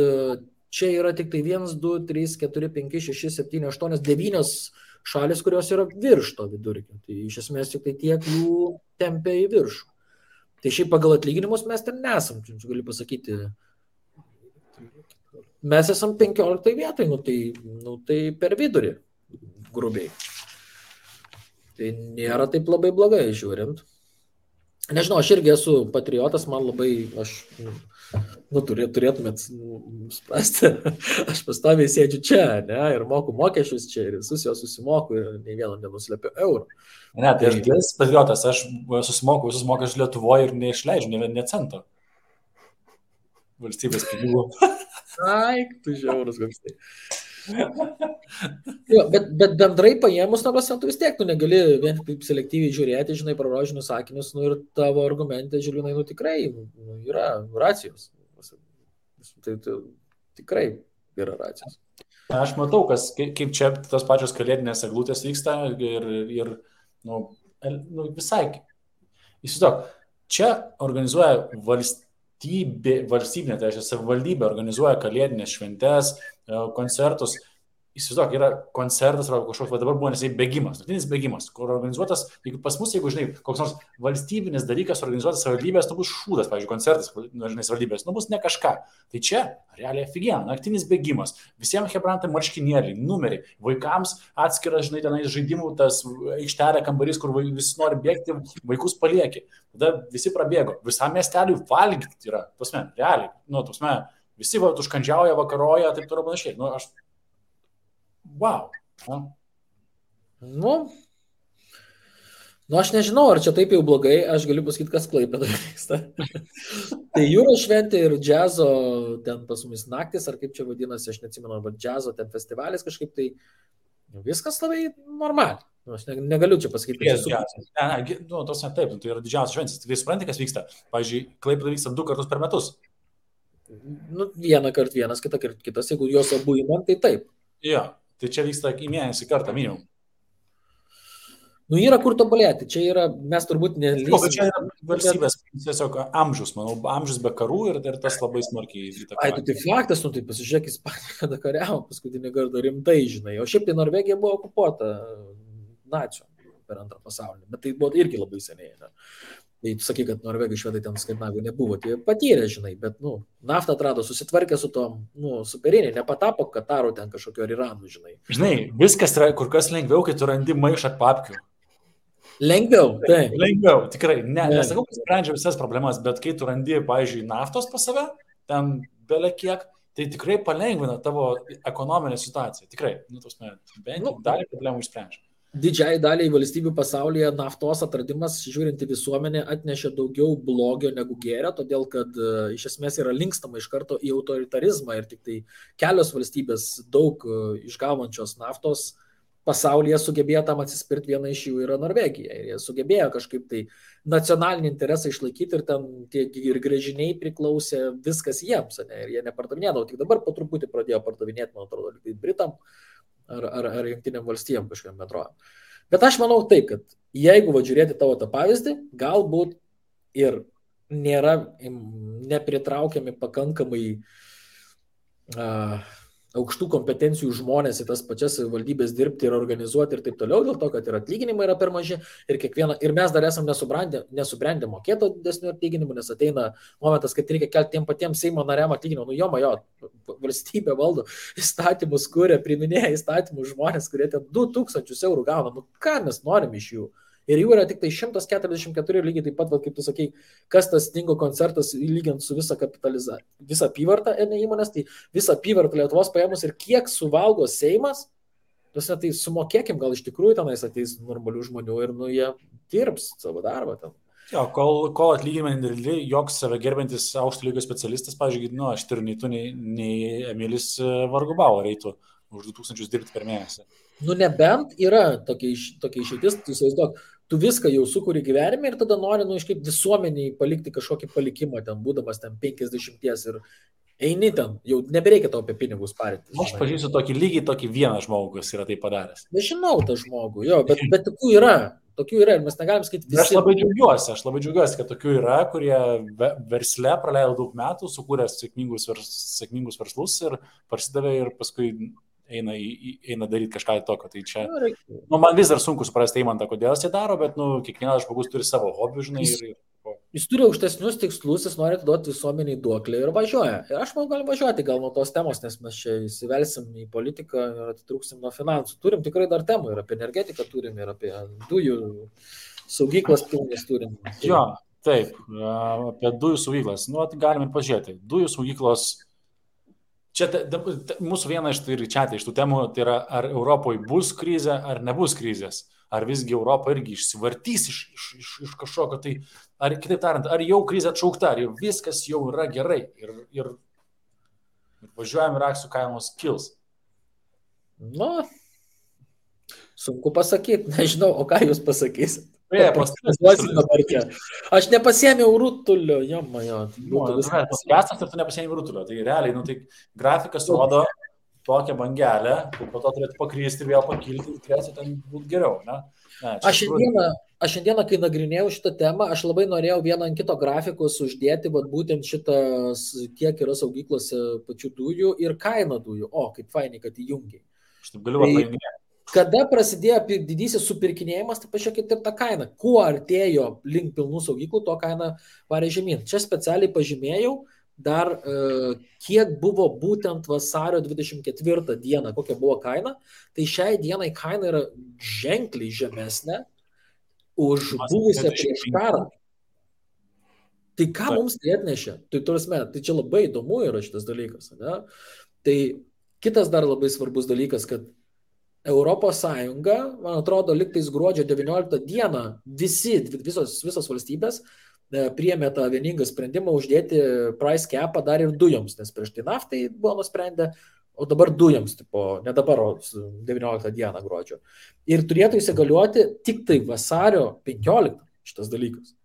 čia yra tik tai 1, 2, 3, 4, 5, 6, 7, 8, 9 šalis, kurios yra virš to vidurkio. Tai iš esmės tik tai tiek jų tempia į viršų. Tai šiaip pagal atlyginimus mes ten nesam, galiu pasakyti. Mes esam 15 vietai, tai per vidurį, grubiai. Tai nėra taip labai blogai žiūrint. Nežinau, aš irgi esu patriotas, man labai, turėtumėt suprasti, aš pastoviai sėdžiu čia, ne, ir moku mokesčius čia, ir visus jos susimoku, ir nei vieną nenuslepiu eurų. Ne, tai aš dėlis patriotas, aš susimoku visus mokesčius Lietuvoje ir neišleidžiu nė cento valstybės pinigų. Ai, tu žiaurus koks tai. Jo, bet bendrai paėmus, tu vis tiek, tu negali vien taip selektyviai žiūrėti, žinai, pro rožinius sakinius, ir tavo argumentai, Žilvinai, tikrai yra racijos. Tai tikrai yra racijos. Aš matau, kaip čia tos pačios kalėdinės eglutės vyksta ir visai. Įsivaizduok, čia organizuoja valstybinė, tai reiškia, savivaldybė organizuoja kalėdinės šventes, koncertus. Įsivaizduok, yra koncertas arba kažkoks, dabar buvo nesai bėgimas, naktinis bėgimas, kur organizuotas, jeigu pas mus, jeigu, žinai, koks nors valstybinis dalykas organizuotas savivaldybės, bus šūdas, pavyzdžiui, koncertas, žinai, savivaldybės, bus ne kažką. Tai čia, realiai aфиген, naktinis bėgimas, visiems hebrantai marškinėliai, numeriai, vaikams atskiras, žinai, tenais žaidimų, tas aikštelė kambarys, kur visi nori bėgti, vaikus palieki. Tada visi prabėgo, visam miesteliui valgyti yra, tasme, realiai, tasme, visi užkandžiauja, vakaroja, taip toliau panašiai. Wow. Aš nežinau, ar čia taip jau blogai, aš galiu pasakyti, kas Klaipėdoje vyksta. Tai jūros šventė ir džiazo ten pas mumis naktis, ar kaip čia vadinasi, aš neatsimenu, bet džiazo ten festivalis kažkaip, tai viskas labai normaliai. Aš negaliu čia pasakyti. Tos ne taip, tai yra didžiausias šventės. Tai supranti, kas vyksta. Pavyzdžiui, Klaipėdoje vyksta 2 kartus per metus. Vieną kartą vienas, kitą kartą kitas, jeigu jos abu įman, tai taip. Jo. Tai čia vyksta į mėnesį kartą minimum. Yra kur tobulėti. Čia yra, mes turbūt nelysime. Čia yra valstybės tiesiog amžius, manau, amžius be karų ir tas labai smarkiai įtakoja. Tai faktas, tai pasižiūrėk, Ispanija kada kariavo paskutinį kartą rimtai, žinai. O šiaip tai Norvegija buvo okupuota nacių per Antrą pasaulinį, bet tai buvo irgi labai seniai. Ne? Tai tu sakai, kad Norvegai, švedai ten Skandinavijų nebuvo, tai patyrė, žinai, bet, naftą atrado, susitvarkė su tom, superiniai, nepatapo Kataru ten kažkokio Iranu, žinai. Žinai, viskas yra kur kas lengviau, kai tu randi maišą papkių. Lengviau, taip. Lengviau, tikrai. Nesakau, kad sprendžia visas problemas, bet kai tu randi, pavyzdžiui, naftos pas save, ten bele kiek, tai tikrai palengvina tavo ekonominę situaciją. Tikrai, bent jau dalį problemų išsprendžia. Didžiai daliai valstybių pasaulyje naftos atradimas, žiūrint į visuomenę, atnešė daugiau blogio negu gėrio, todėl kad iš esmės yra linkstama iš karto į autoritarizmą ir tik tai kelios valstybės daug išgaunančios naftos pasaulyje sugebėjo tam atsispirti, viena iš jų yra Norvegija. Ir jie sugebėjo kažkaip tai nacionalinį interesą išlaikyti ir ten ir gręžiniai priklausė viskas jiems, ne? Ir jie nepardavinėdavo, tik dabar po truputį pradėjo pardavinėti, man atrodo, Britam ar Jungtinėm valstijom kažkokiam bendrovėm. Bet aš manau taip, kad jeigu žiūrėti tavo tą pavyzdį, galbūt ir nėra nepritraukiami pakankamai aukštų kompetencijų žmonės į tas pačias valdybės dirbti ir organizuoti ir taip toliau, dėl to, kad ir atlyginimai yra per maži ir mes dar esam nesubrendę mokėti didesnių atlyginimų, nes ateina momentas, kad reikia kelti tiem patiems Seimo nariam atlyginimą. Valstybė valdo įstatymus, kuria, priminėja įstatymus žmonės, kurie ten 2000 eurų gauna. Ką mes norim iš jų? Ir jų yra tik tai 144, lygiai taip pat, kaip tu sakai, kas tas Stingo koncertas lygiant su visą apyvartą įmonės, tai visą apyvartą Lietuvos paėmus ir kiek suvalgo Seimas, tai sumokėkim, gal iš tikrųjų tenais ateis normalių žmonių ir jie dirbs savo darbą ten. Jo, kol atlyginimai nedideli, joks save gerbiantis aukšto lygio specialistas, pavyzdžiui, aš turiu nei tu, nei Emilis vargu bau reitų už 2000 dirbti per mėnesį. Nebent yra tokia išeitis, tu įsivaizduok, tu viską jau sukuri gyvenime ir tada nori, kaip visuomeniai palikti kažkokį palikimą ten, būdamas ten 50 ir eini ten, jau nebereikia tau apie pinigus parinti. Aš pažįstu tokį vieną žmogų, kuris yra tai padaręs. Nežinau tą žmogų, jo, bet tokių yra ir mes negalim skaityti visi. Aš labai džiaugiuosi, kad tokių yra, kurie versle praleido daug metų, sukūrė sėkmingus verslus ir prasidavė ir paskui eina daryti kažką tokio. Tai čia, man vis dar sunku suprasti Eimantą, kodėl jis tai daro, bet kiekvienas žmogus turi savo hobių, žinai. Jis turi aukštesnius tikslus, jis nori duoti visuomeniai duoklę ir važiuoja. Ir aš manau, galim važiuoti gal nuo tos temos, nes mes čia įsivelsim į politiką ir atitrūksim nuo finansų. Turim tikrai dar temų ir apie energetiką turim, ir apie dujų saugyklas pilnas turim. Jo, Taip, apie dujų saugyklas. Nu, galime pažiūrėti. Dujų saugyklos. Čia mūsų viena iš tų temų, tai yra, ar Europoje bus krizė, ar nebus krizės. Ar visgi Europa irgi išsivartys iš kažkokio, tai, ar kitaip tariant, ar jau krizė atšaukta, ar jau viskas jau yra gerai ir važiuojam ir akcijų kainos kils. Nu, sunku pasakyti, nežinau, o ką jūs pasakysit? Aš nepasiėmiau rutulio, jomajo. Podcastas ir tu nepasiėmiau rutulio, tai realiai, tai grafikas rodo tokią bangelę, po to turėtų pakrysti, vėl pakilti ir turėtų ten būti geriau. Ne? Aš šiandieną, kai nagrinėjau šitą temą, aš labai norėjau vieną ant kito grafikus uždėti, būtent šitas, kiek yra saugyklose pačių dujų ir kaina dujų. O, kaip fainai, kad įjungiai. Aš taip galiu paminėti. Kada prasidėjo didysis supirkinėjimas, tai pažiūrėkit ir tą kainą. Kuo artėjo link pilnų saugyklų, to kaina varė žemyn. Čia specialiai pažymėjau dar, kiek buvo būtent vasario 24 dieną, kokia buvo kaina. Tai šiai dienai kaina yra ženkliai žemesnė už buvusią prieš karą. Tai ką mums tai atnešė? Tai čia labai įdomu yra šitas dalykas. Ne? Tai kitas dar labai svarbus dalykas, kad Europos Sąjunga, man atrodo, liktais gruodžio 19 dieną visos valstybės priėmė tą vieningą sprendimą uždėti price capą dar ir dujoms, nes prieš tai naftai buvo nusprendę, o dabar dujoms, ne dabar, o 19 dieną gruodžio. Ir turėtų įsigaliuoti tik tai vasario 15 šitas dalykas.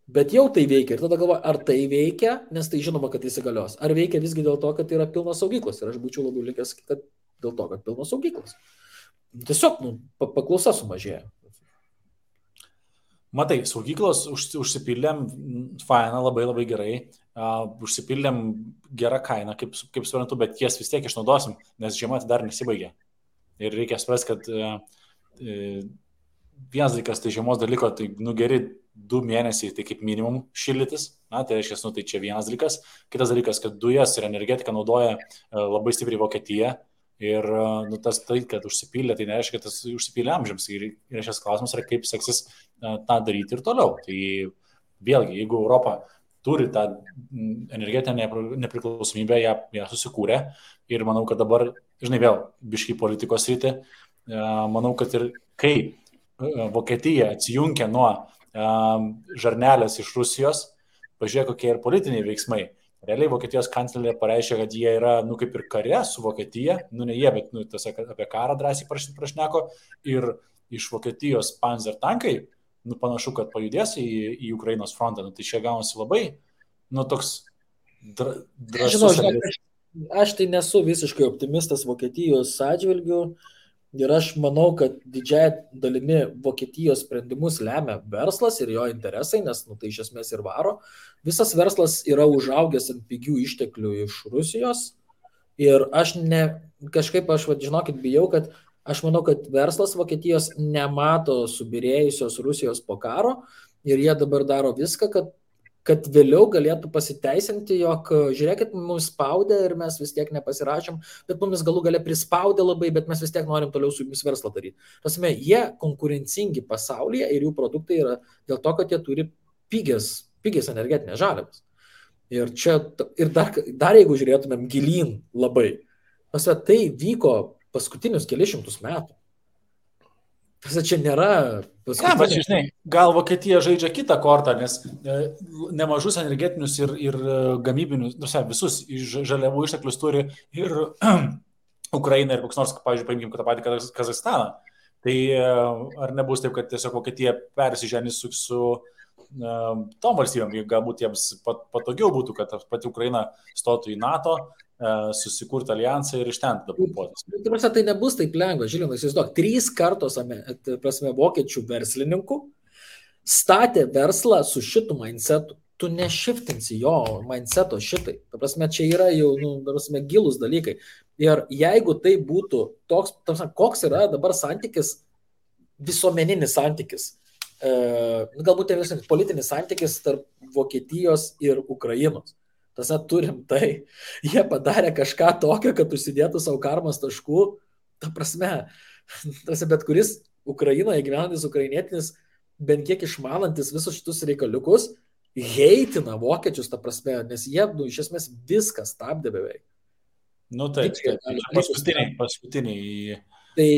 Bet jau tai veikia ir tada galvoju, ar tai veikia, nes tai žinoma, kad įsigalios. Ar veikia visgi dėl to, kad tai yra pilnos saugyklos. Ir aš būčiau labiau linkęs, kad dėl to, kad pilnos saugyklos. Tiesiog paklausa sumažėja. Matai, saugyklos užsipildėm, faina, labai labai gerai, užsipildėm gerą kainą, kaip suprantu, bet jas vis tiek išnaudosim, nes žiema dar nesibaigė. Ir reikia suprasti, kad vienas dalykas, tai žiemos dalyko, tai geri 2 mėnesiai, tai kaip minimum šildytis, tai reiškia, tai čia vienas dalykas. Kitas dalykas, kad dujas ir energetiką naudoja labai stipriai Vokietija. Ir tas tai, kad užsipylė, tai nereiškia, kad tas užsipylė amžiams. Ir šias klausimas yra, kaip seksis tą daryti ir toliau. Tai vėlgi, jeigu Europa turi tą energetinę nepriklausomybę, ją susikūrė. Ir manau, kad dabar, vėl biškai politikos rytį, manau, kad ir kai Vokietija atsijungia nuo žarnelės iš Rusijos, pažiūrėk, kokie ir politiniai veiksmai. Realiai Vokietijos kanclerė pareiškė, kad jie yra, kaip ir kare su Vokietija, ne jie, bet tiesiog apie karą drąsiai prašneko ir iš Vokietijos Panzer tankai, panašu, kad pajudės į Ukrainos frontą. Tai čia gaunasi labai, toks drąsus. Aš tai nesu visiškai optimistas Vokietijos atžvilgiu ir aš manau, kad didžiąją dalimi Vokietijos sprendimus lemia verslas ir jo interesai, nes tai iš esmės ir varo. Visas verslas yra užaugęs ant pigių išteklių iš Rusijos ir aš žinokit, bijau, kad aš manau, kad verslas Vokietijos nemato subirėjusios Rusijos po karo ir jie dabar daro viską, kad vėliau galėtų pasiteisinti, jog žiūrėkit, mums spaudė ir mes vis tiek nepasirašėm, bet mums galų gale prispaudė labai, bet mes vis tiek norim toliau su jumis verslą daryti. Prasme, jie konkurencingi pasaulyje ir jų produktai yra dėl to, kad jie turi pigias energetinės žaliavas. Ir dar jeigu žiūrėtumėm gilyn labai, tai vyko paskutinius kelišimtus metų. Čia nėra gal Vokietija žaidžia kitą kortą, nes nemažus energetinius ir gamybinius, visus žaliavų išteklius turi ir Ukraina ir koks nors, pavyzdžiui, paimkim tą patį Kazachstaną. Tai ar nebus taip, kad tiesiog Vokietija persiženys su tom valstybėm, galbūt jiems patogiau būtų, kad pati Ukraina stotų į NATO, susikurti alijansą ir iš ten dapuotis. Tai nebus taip lengva, Žilinai, įsivaizduok, 3 kartos vokiečių verslininkų statė verslą su šitų mindsetu. Tu nešiftinsi jo mindseto šitai. Čia yra jau gilus dalykai. Ir jeigu tai būtų toks, koks yra dabar santykis, visuomeninis santykis, galbūt politinis santykis tarp Vokietijos ir Ukrainos. Turim tai, jie padarė kažką tokio, kad užsidėtų savo karmos taškų, bet kuris Ukrainoje gyvenantis ukrainietinis bent kiek išmanantis visus šitus reikaliukus, heitina vokiečius, ta prasme, nes jie, iš esmės, viskas stabdė beveik. Taip, paskutiniai. Tai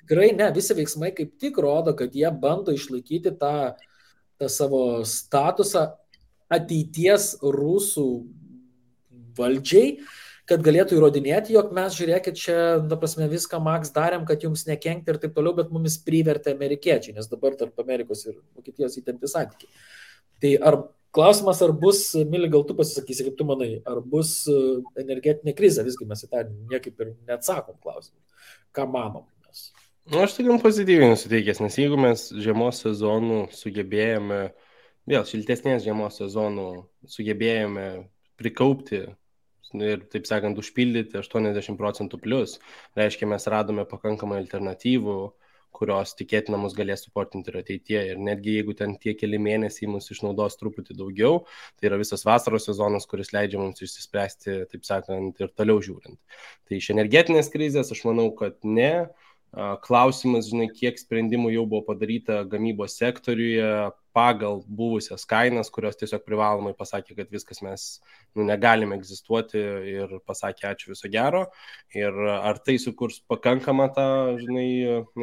tikrai ne, visi veiksmai kaip tik rodo, kad jie bando išlaikyti tą savo statusą ateities rusų valdžiai, kad galėtų įrodinėti, jog mes, žiūrėkit, čia, ta prasme, viską Max darėm, kad jums nekenkti ir taip toliau, bet mumis privertė amerikiečiai, nes dabar tarp Amerikos ir Vokietijos įtempti santykiai. Tai klausimas, ar bus, Mili, gal tu pasisakysi, kaip tu manai, ar bus energetinė krizė, visgi mes į tą niekaip ir neatsakom klausimą. Ką manom mes? Aš tai gan pozityviai nusiteikęs, nes jeigu mes žiemos sezonų sugebėjome, vėl šiltesnės žiemos sezonų sugebėjome prikaupti ir, taip sakant, užpildyti 80% plus, reiškia, mes radome pakankamai alternatyvų, kurios tikėtina mus galės suportinti ir ateityje. Ir netgi jeigu ten tie keli mėnesiai mus išnaudos truputį daugiau, tai yra visas vasaros sezonas, kuris leidžia mums išsispręsti, taip sakant, ir toliau žiūrint. Tai iš energetinės krizės aš manau, kad ne. Klausimas, žinai, kiek sprendimų jau buvo padaryta gamybos sektoriuje pagal buvusias kainas, kurios tiesiog privalomai pasakė, kad viskas mes negalime egzistuoti ir pasakė ačiū, viso gero. Ir ar tai sukurs pakankamą tą, žinai,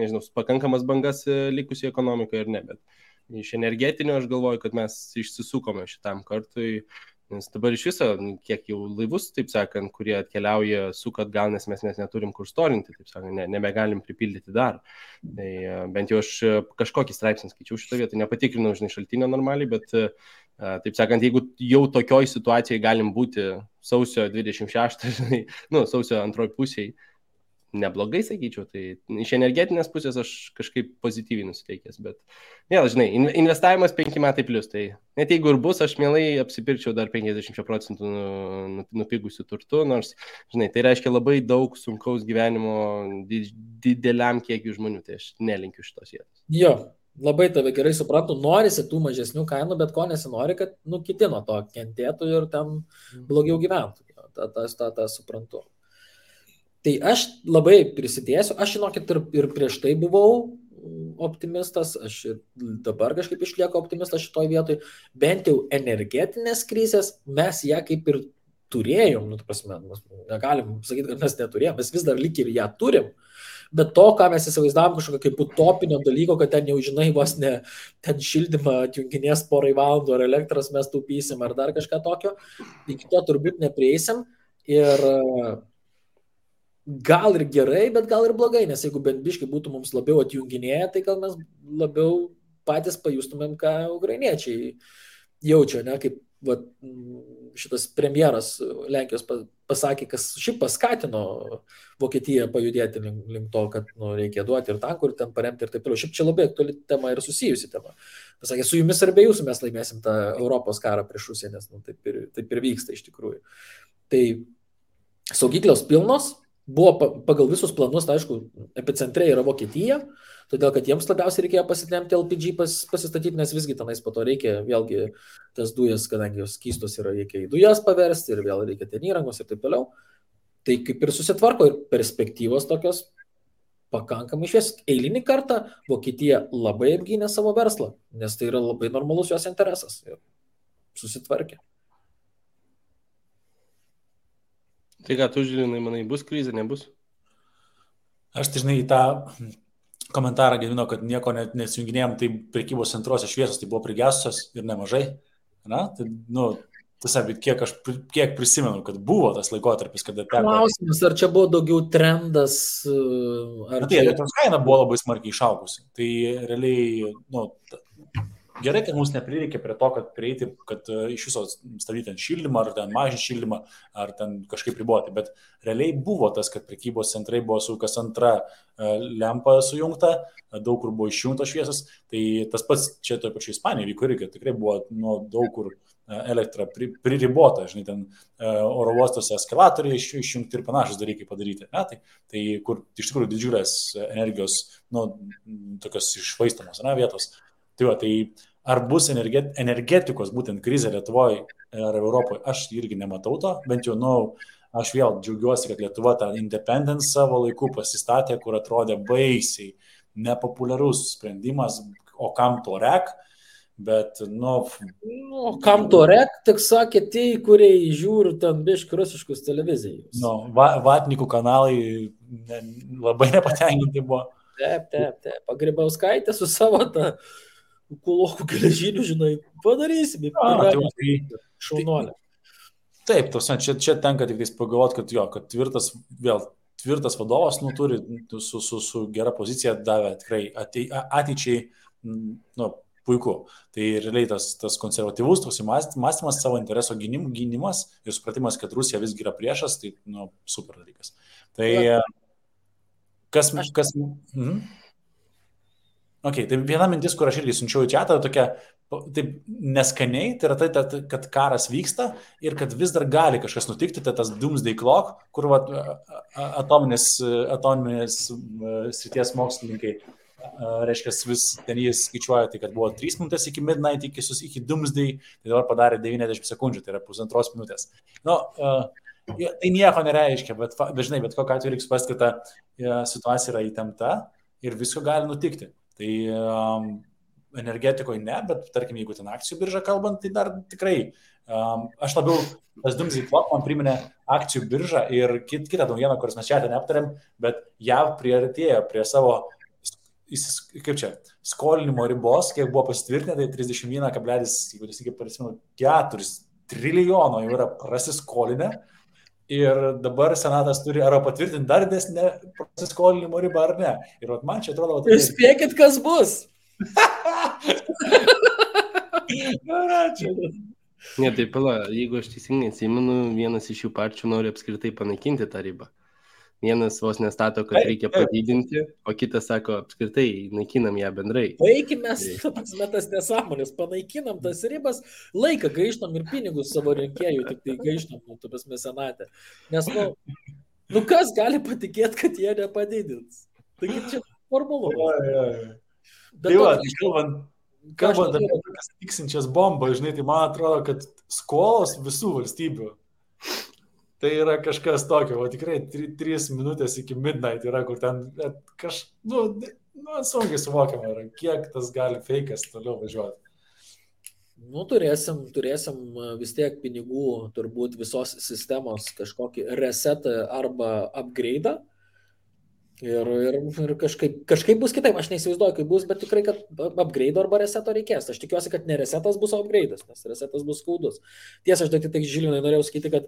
nežinau, pakankamas bangas likusiai ekonomikai ar ne, bet iš energetinio aš galvoju, kad mes išsisukome šitam kartui. Nes dabar iš viso, kiek jau laivus, taip sakant, kurie atkeliauja, sukat gal, nes mes neturim kur storinti, taip sakant, nebegalim pripildyti dar. Tai bent jau aš kažkokį straipsnį skaičiau šitą vietą, nepatikrinau, žinai, šaltinio normaliai, bet, taip sakant, jeigu jau tokioj situacijai galim būti sausio 26, žinai, sausio antroj pusėje, neblogai, sakyčiau, tai iš energetinės pusės aš kažkaip pozityviai nusiteikęs, bet vėl, žinai, investavimas 5 metai plus, tai net jeigu ir bus, aš mielai apsipirkčiau dar 50% nupigusių turtų, nors, žinai, tai reiškia labai daug sunkaus gyvenimo dideliam kiekiu žmonių, tai aš nelinkiu šitos vietos. Jo, labai tave gerai suprantu, norisi tų mažesnių kainų, bet ko nesinori, kad, kiti nuo to kentėtų ir ten blogiau gyventų, tą suprantu. Tai aš labai prisidėsiu, aš žinokit ir prieš tai buvau optimistas, aš ir dabar kažkaip išlieku optimistas šitoj vietoj, bent jau energetinės krizės mes ją kaip ir turėjom, negalim sakyti, kad mes neturėjom, mes vis dar lyg ir ją turim, bet to, ką mes įsivaizdavom kažkokio kaip utopinio dalyko, kad ten jau žinai vos ne ten šildymą atjunginės porai valandų ar elektros mes taupysim ar dar kažką tokio, iki to turbūt neprieisim ir gal ir gerai, bet gal ir blogai, nes jeigu bent biškai būtų mums labiau atjunginėję, tai gal mes labiau patys pajustumėm, ką ukrainiečiai jaučia, ne, kaip šitas premjeras Lenkijos pasakė, kas šiaip paskatino Vokietiją pajudėti link to, kad reikia duoti ir tankų, ir ten paremti ir taip toliau. Šiaip čia labai aktuali tema ir susijusi tema. Pasakė, su jumis ar be jūsų mes laimėsim tą Europos karą prieš Rusiją, nes taip ir vyksta iš tikrųjų. Tai saugyklos pilnos, buvo pagal visus planus, tai aišku, epicentre yra Vokietija, todėl kad jiems labiausiai reikėjo pasitemti LPG pasistatyti, nes visgi tenais po to reikia vėlgi tas dujas, kadangi jos skystos yra, reikia į dujas paversti ir vėl reikia ten įrangos ir taip toliau. Tai kaip ir susitvarko ir perspektyvos tokios pakankamai švies. Eilinį kartą Vokietija labai apgynė savo verslą, nes tai yra labai normalus jos interesas ir susitvarkė. Tai ką tu žiūrinai, manai, bus krizė, nebus? Aš tai žinai į tą komentarą gyvino, kad nieko nesijunginėjom, tai prekybos centruose šviesos tai buvo prigesusios ir nemažai. Na, tai, tiesiog, kiek prisimenu, kad buvo tas laikotarpis, kada teko. Klausimas, ar čia buvo daugiau trendas, ar tai elektros kaina buvo labai smarkiai išaugusi. Tai realiai, gerai, kad mums neprireikė prie to, kad prieiti, kad iš viso stabdyti šildymą, ar ten mažinti šildymą, ar ten kažkaip riboti, bet realiai buvo tas, kad prekybos centrai buvo su kas antra lempa sujungta, daug kur buvo išjungtos šviesos, tai tas pats čia toje pačioje Ispanijoje vyko irgi, tikrai buvo daug kur elektra priribota, žinai, ten oro uostose eskalatoriai išjungti ir panašus dalykai padaryti, tai kur iš tikrųjų didžiulės energijos, tokios išvaistamos vietos. Tai ar bus energetikos būtent krizė Lietuvoje ar Europoje, aš irgi nematau to, bent jau, aš vėl džiaugiuosi, kad Lietuva tą independence savo laiku pasistatė, kur atrodė baisiai nepopuliarus sprendimas, o kam to rek, bet, Kam to rek, tik sakė tie, kurie žiūri ten biški rusiškus televizijos. Vatnikų kanalai labai nepatenkinti buvo. Taip. Grybauskaitė su savo tą kulokų geležinių, žinai, padarysime. Šaunuolė. Taip, čia tenka tik pagalvoti, kad tvirtas vadovas turi su gera pozicija davė tikrai ateičiai puiku. Tai realiai tas konservatyvus toks mąstymas, savo intereso gynimas ir supratimas, kad Rusija visgi yra priešas, tai super dalykas. Tai kas Okay, tai viena mintis, kur aš irgi siunčiau į chatą, tokia taip neskaniai, tai yra tai, kad karas vyksta ir kad vis dar gali kažkas nutikti, tai tas doomsday clock, kur atominės srities mokslininkai, reiškia, vis ten jis skaičiuoja, tai kad buvo 3 minutės iki midnight, iki doomsday, tai dabar padarė 90 sekundžių, tai yra 1,5 minutės. Tai nieko nereiškia, bet žinai, bet kokiu atveju reikia suprasti, kad ta situacija yra įtempta ir visko gali nutikti. Tai energetikoje ne, bet tarkim, jeigu ten akcijų birža kalbant, tai dar tikrai aš labiau, tas doomsday clock man priminė akcijų biržą ir kitą naujieną, kuris mes čia neaptarėm, bet JAV priartėjo prie savo, skolinimo ribos, kiek buvo pasitvirtinę, tai 31,4 trilijono jau yra prasiskolinę. Ir dabar senatas turi arba patvirtinti dar didesnę prasiskolinimo ribą ar ne. Ir man čia atrodo... Spėkit, kas bus. Ne, tai pala, jeigu aš teisingai atsimenu, vienas iš jų partijų nori apskritai panaikinti tą ribą. Vienas vos nestato, kad reikia padidinti, o kitas sako, apskritai naikinam ją bendrai. Baigime tas nesąmonės, panaikinam tas ribas, laiką gaištam ir pinigus savo rinkėjų, tik tai gaištam, tas mesenatė. Nes, kas gali patikėti, kad jie nepadidins? Taigi čia formulu. Tai kalbant apie tokias tiksinčias bombas, žinai, tai man atrodo, kad skolos visų valstybių. Tai yra kažkas tokio, o tikrai 3 minutės iki midnight yra, kur ten sunkiai suvokiama yra, kiek tas gali feikas toliau važiuoti. Turėsim vis tiek pinigų, turbūt visos sistemos kažkokį resetą arba upgrade'ą. Ir kažkaip bus kitaip, aš neįsivaizduoju, kaip bus, bet tikrai, kad upgrade arba reseto reikės. Aš tikiuosi, kad ne resetas bus, o upgrade'as, nes resetas bus skaudus. Tiesa, aš tik Žilinai norėjau sakyti, kad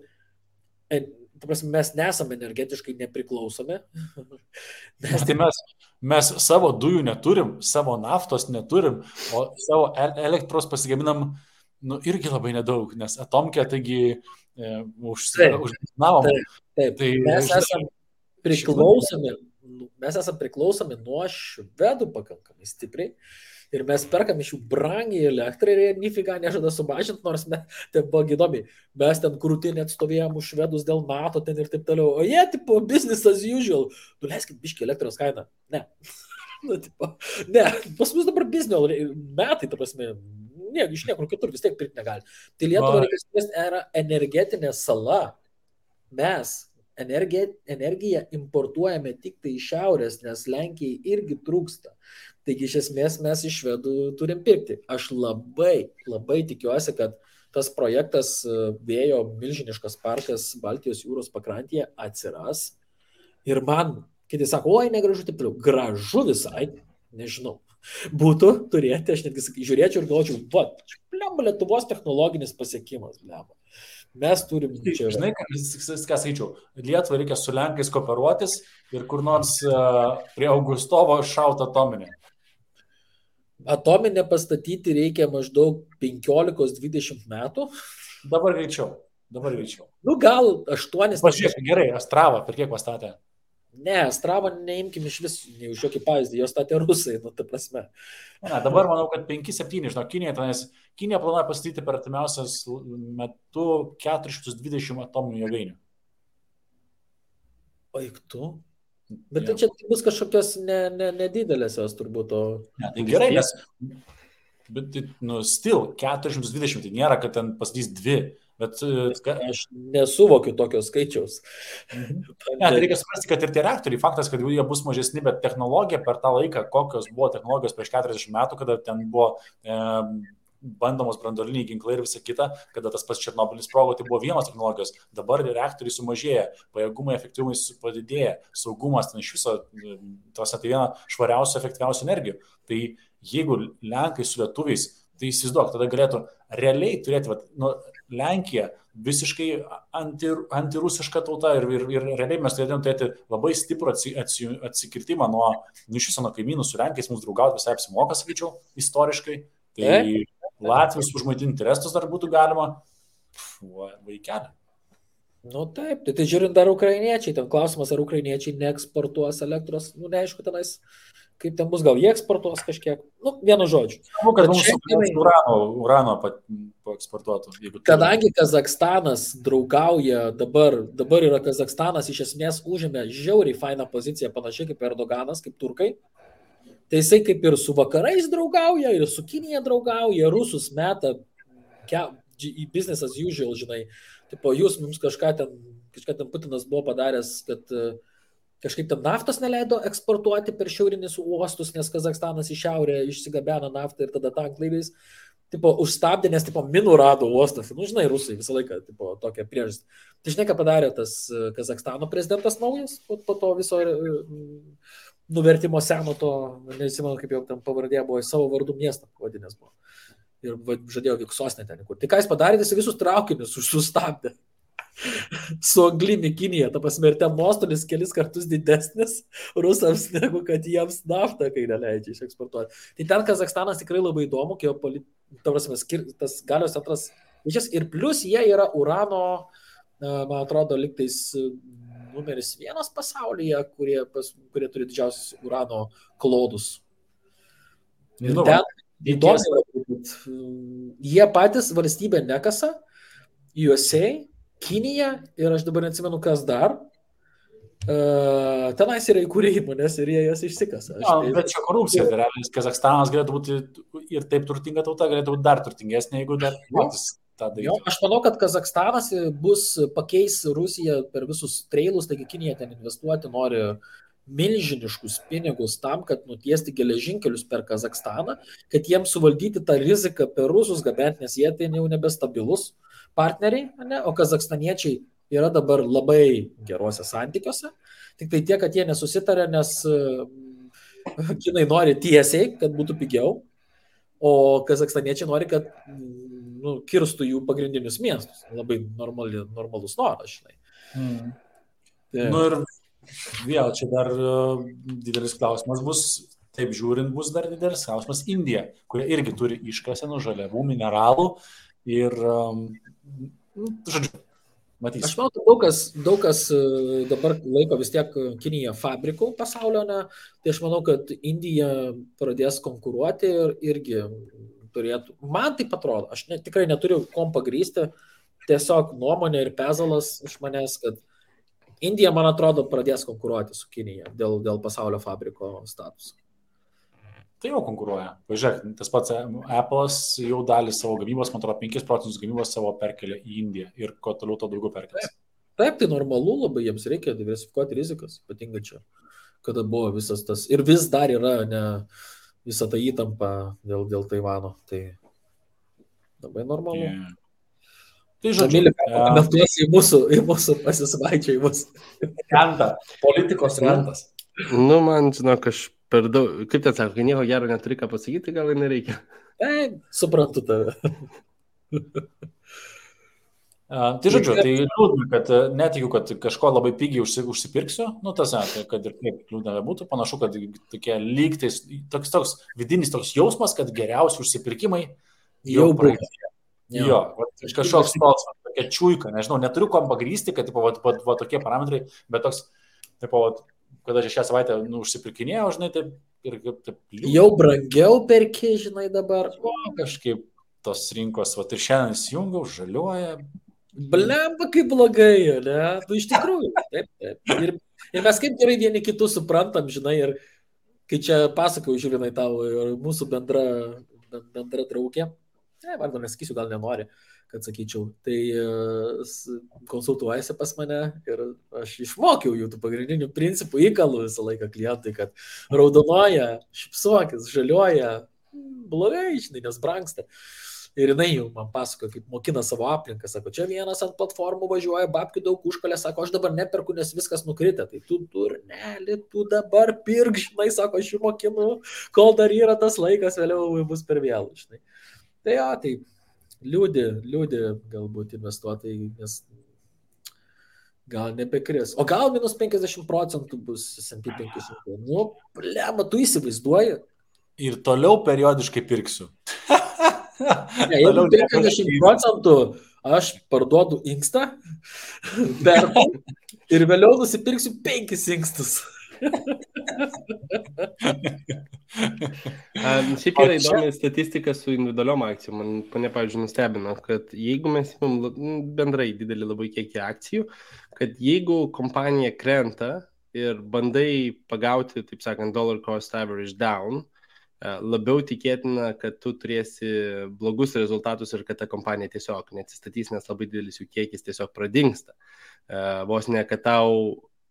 mes nesame energetiškai nepriklausomi. Mes savo dujų neturim, savo naftos neturim, o savo elektros pasigaminam irgi labai nedaug, nes atomkė taigi užsinavom. Taip. Mes esame priklausomi nuo švedų pakankamai stipriai. Ir mes perkam iš jų brangiai elektrą ir jie nifiga nežada sumažinti, nors ten buvo įdomiai. Mes ten krūtinį atstovėjom už švedus dėl NATO ten ir taip toliau. O jie, tipo, business as usual. Leiskit biškį elektros kainą. Ne. Ne, pas mus dabar biznio metai, ta prasme, iš niekur kitur vis tiek pirkti negali. Tai Lietuva reikia yra energetinė sala. Mes energiją importuojame tik tai iš šiaurės, nes Lenkijai irgi trūksta. Taigi iš esmės mes iš švedų turim pirkti. Aš labai tikiuosi, kad tas projektas vėjo milžiniškas parkas Baltijos jūros pakrantėje atsiras. Ir man, kiti sako, oi, negražu, taip toliau. Gražu visai, nežinau. Būtų turėti, aš netgi žiūrėčiau ir galvočiau, Lietuvos technologinis pasiekimas, Mes turim čia... Žinai, ką skaičiau, Lietuvai reikia su Lenkais kooperuotis ir kur nors prie Augustovo šaut atominę. Atominę pastatyti reikia maždaug 15-20 metų. Dabar greičiau. Gal 8. Pažiūrėk, gerai, Astravą per kiek pastatė? Ne, Astravą neimkim iš vis, nei už jokį pavyzdį, jos statė rusai, ta prasme. Ne, dabar manau, kad 5-7, žinau, Kinija planuoja pastatyti per artimiausias metu 420 atominių jėgainių. Eik tu? Bet tai čia bus kažkokios nedidelės jos turbūt. Ne, tai gerai, nes still 420, tai nėra, kad ten pastatys 2 Bet Aš nesuvokiu tokio skaičiaus. Ne, tai reikia suprasti, kad ir tie reaktoriai, faktas, kad jie bus mažesni, bet technologija per tą laiką, kokios buvo technologijos prieš 40 metų, kada ten buvo bandomos branduoliniai ginklai ir visa kita, kada tas pats Černobylis sprogo, tai buvo vienos technologijos. Dabar reaktoriai sumažėja, pajėgumai, efektyvumai padidėja, saugumas, ten iš viso, tos tai viena švariausių, efektyviausių energijų. Tai jeigu Lenkai su lietuviais, tai įsivaizduok, tada galėtų realiai turėti, Lenkija visiškai antirusiška tauta ir realiai mes turėtume turėti labai stiprų atsikirtimą nuo viso nuo kaimynų su Lenkijais, mums draugauti visai apsimoka, sakyčiau, istoriškai. Tai Latvijos užmaitinti restus dar būtų galima. Vaikelė. Nu taip, tai žiūrint dar ukrainiečiai, ten klausimas, ar ukrainiečiai neeksportuos elektros, neaišku tenais, kaip ten bus, gal jie eksportuos kažkiek, vienu žodžiu. Manau, kad mums urano paeksportuotų. Kadangi Kazakstanas draugauja, dabar yra Kazakstanas iš esmės užėmė žiauriai fainą poziciją, panašiai kaip Erdoganas, kaip turkai. Tai jisai kaip ir su vakarais draugauja, ir su Kinija draugauja, rusus meta į business as usual, žinai. Tipo, jūs mums kažką ten Putinas buvo padaręs, kad kažkaip ten naftos neleido eksportuoti per šiaurinius uostus, nes Kazakstanas į šiaurę išsigabeno naftą ir tada tanklaiviais. Tipo, užstabdė, nes tipo, minų rado uostas. Žinai, rusai visą laiką tipo, tokią priežastį. Tai žinai, ką padarė tas Kazakstano prezidentas naujas po to viso nuvertimo seno to, nesimenu, kaip jau ten pavardė buvo, į savo vardų miestą pavadinęs buvo. Ir žadėjo Viksosnė ten. Tai ką jis padarė, jis visus traukinius sustabdė. Su anglimi Kinija, ta prasme, ir ten nuostolis kelis kartus didesnis rusams, negu kad jiems naftą, kai neleidžia išeksportuoti. Tai ten Kazakstanas tikrai labai įdomu, ta prasme, tas galios centras, ir plus jie yra urano, man atrodo, liktais numeris 1 pasaulyje, kurie turi didžiausius urano klodus. Ir ten įdomu, jie patys valstybė nekasa, USA, Kinija ir aš dabar neatsimenu, kas dar. Tenais yra įkūrė įmonės ir jie jas išsikasa. Bet čia korupcija, tai realiai Kazakstanas galėtų būti ir taip turtinga tauta, galėtų būti dar turtingesnė, jeigu dar patys tą darytų. Aš manau, kad Kazakstanas pakeis Rusiją per visus treilus, taigi Kinija ten investuoti nori milžiniškus pinigus tam, kad nutiesti geležinkelius per Kazakstaną, kad jiems suvaldyti tą riziką per rusus gabenti, nes jie tai jau nebestabilus partneriai, ne? O kazakstaniečiai yra dabar labai geruose santykiuose, tik tai tiek, kad jie nesusitarė, nes kinai nori tiesiai, kad būtų pigiau, o kazakstaniečiai nori, kad kirstų jų pagrindinius miestus. Labai normalus noras, žinai. Ir vėl čia dar didelis klausimas bus, taip žiūrint, bus dar didelis klausimas Indija, kurie irgi turi iškasenų žaliavų, mineralų ir, žodžiu, matysim. Aš manau, daug kas dabar laiko vis tiek Kiniją fabrikų pasaulio, tai aš manau, kad Indija pradės konkuruoti ir irgi turėtų. Man tai atrodo, aš tikrai neturiu kom pagrįsti, tiesiog nuomonė ir pezalas iš manęs, kad Indija, man atrodo, pradės konkuruoti su Kinija dėl pasaulio fabriko statuso. Tai jau konkuruoja. Pažiūrėk, tas pats Apple'as jau dalį savo gamybos, man atrodo, 5% gamybos savo perkelia į Indiją ir kuo toliau to daugiau perkelia. Taip, tai normalu, labai jiems reikia diversifikuoti rizikas, ypatingai čia, kada buvo visas tas, ir vis dar yra visa ta įtampa dėl Taivano, tai labai normalu. Tai žodžiu, komentuosi į mūsų pasisvaičiajimus. Politikos rentas. Man, žinok, aš per daug, kaip ten sako, kai nieko gero neturi ką pasakyti, gal ir nereikia. Suprantu tave. Tai žodžiu, tai liūdna, kad netikiu, kad kažko labai pigiai užsipirksiu, kad ir kaip liūdna būtų, panašu, kad tokie lygtais, toks vidinis toks jausmas, kad geriausi užsipirkimai jau praeitė. Jo, kažkoks toks, tokia čiuika, nežinau, neturiu kom pagrįsti, kad va tokie parametrai, bet toks, kada aš šią savaitę užsipirkinėjau, žinai, taip ir taip liūdna. Jau brangiau perki, žinai, dabar. Kažkaip tos rinkos, ir šiandien įsijungiau, žaliuoja. Blemba, kaip blogai, ne? Tu iš tikrųjų, taip. Ir mes kaip gerai vieni kitus suprantam, žinai, ir kai čia pasakau, žiūrinai tau, ir mūsų bendra draugė, vardą nesakysiu, gal nenori, kad sakyčiau, tai konsultuojasi pas mane ir aš išmokiau jų tų pagrindinių principų, įkalų visą laiką klientui, kad raudonuoja, šipsuokis, žaliuoja, blogai, žinai, nes brangsta. Ir jinai jau man pasako, kaip mokina savo aplinką, sako, čia vienas ant platformų važiuoja, babkių daug užkalė, sako, aš dabar neperku, nes viskas nukritę, tai tu durneli, tu dabar pirk, žinai, sako, aš jų mokinu, kol dar yra tas laikas, vėliau bus per vėlų, žinai. Tai jo, tai liūdė galbūt investuotojai, nes gal nebekris. O gal minus 50% bus S&P 500. Nu, blema, tu įsivaizduoji. Ir toliau periodiškai pirksiu. Ne, jeigu 50% aš parduodu inkstą, perku ir vėliau nusipirksiu 5 inkstus. Šiaip yra įdomi statistika su individualiom akcijom. Mane, pavyzdžiui, nustebino, kad jeigu mes imam bendrai didelį labai kiekį akcijų, kad jeigu kompanija krenta ir bandai pagauti, taip sakant, dollar cost average down, labiau tikėtina, kad tu turėsi blogus rezultatus ir kad ta kompanija tiesiog neatsistatys, nes labai didelis jų kiekis tiesiog pradingsta. Vos ne, kad tau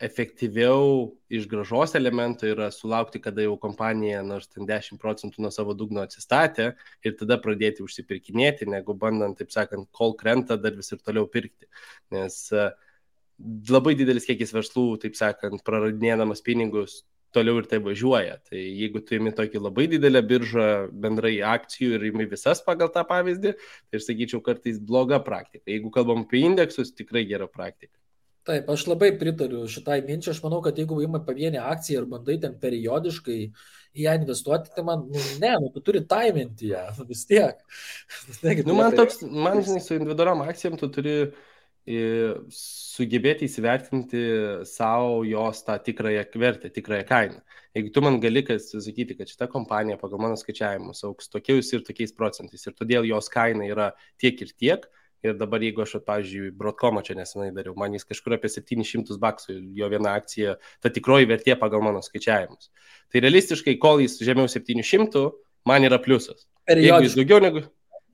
efektyviau iš grąžos elemento yra sulaukti, kada jau kompanija nors ten 10% nuo savo dugno atsistatė ir tada pradėti užsipirkinėti, negu bandant, taip sakant, kol krenta dar vis ir toliau pirkti. Nes labai didelis kiekis verslų, taip sakant, praradinėdamas pinigus, toliau ir tai važiuoja. Tai jeigu tu imi tokį labai didelę biržą bendrai akcijų ir imi visas pagal tą pavyzdį, tai aš sakyčiau kartais bloga praktika. Jeigu kalbam apie indeksus, tikrai gera praktika. Taip, aš labai pritariu šitai minčiai. Aš manau, kad jeigu imai pavienę akciją ir bandai ten periodiškai į ją investuoti, tai man, tu turi taiminti ją, vis tiek. Man, žinai, su individualiom akcijom tu turi sugebėti įsivertinti savo jos tą tikrąją vertę, tikrąją kainą. Jeigu tu man gali sakyti, kad šita kompanija pagal mano skaičiavimus auks tokiais ir tokiais procentais ir todėl jos kaina yra tiek ir tiek, ir dabar jeigu aš, pavyzdžiui, Broadcomą čia nesenai dariau, man jis kažkur apie $700 jo viena akcija, ta tikroji vertė pagal mano skaičiavimus. Tai realistiškai, kol jis žemiau 700, man yra pliusas.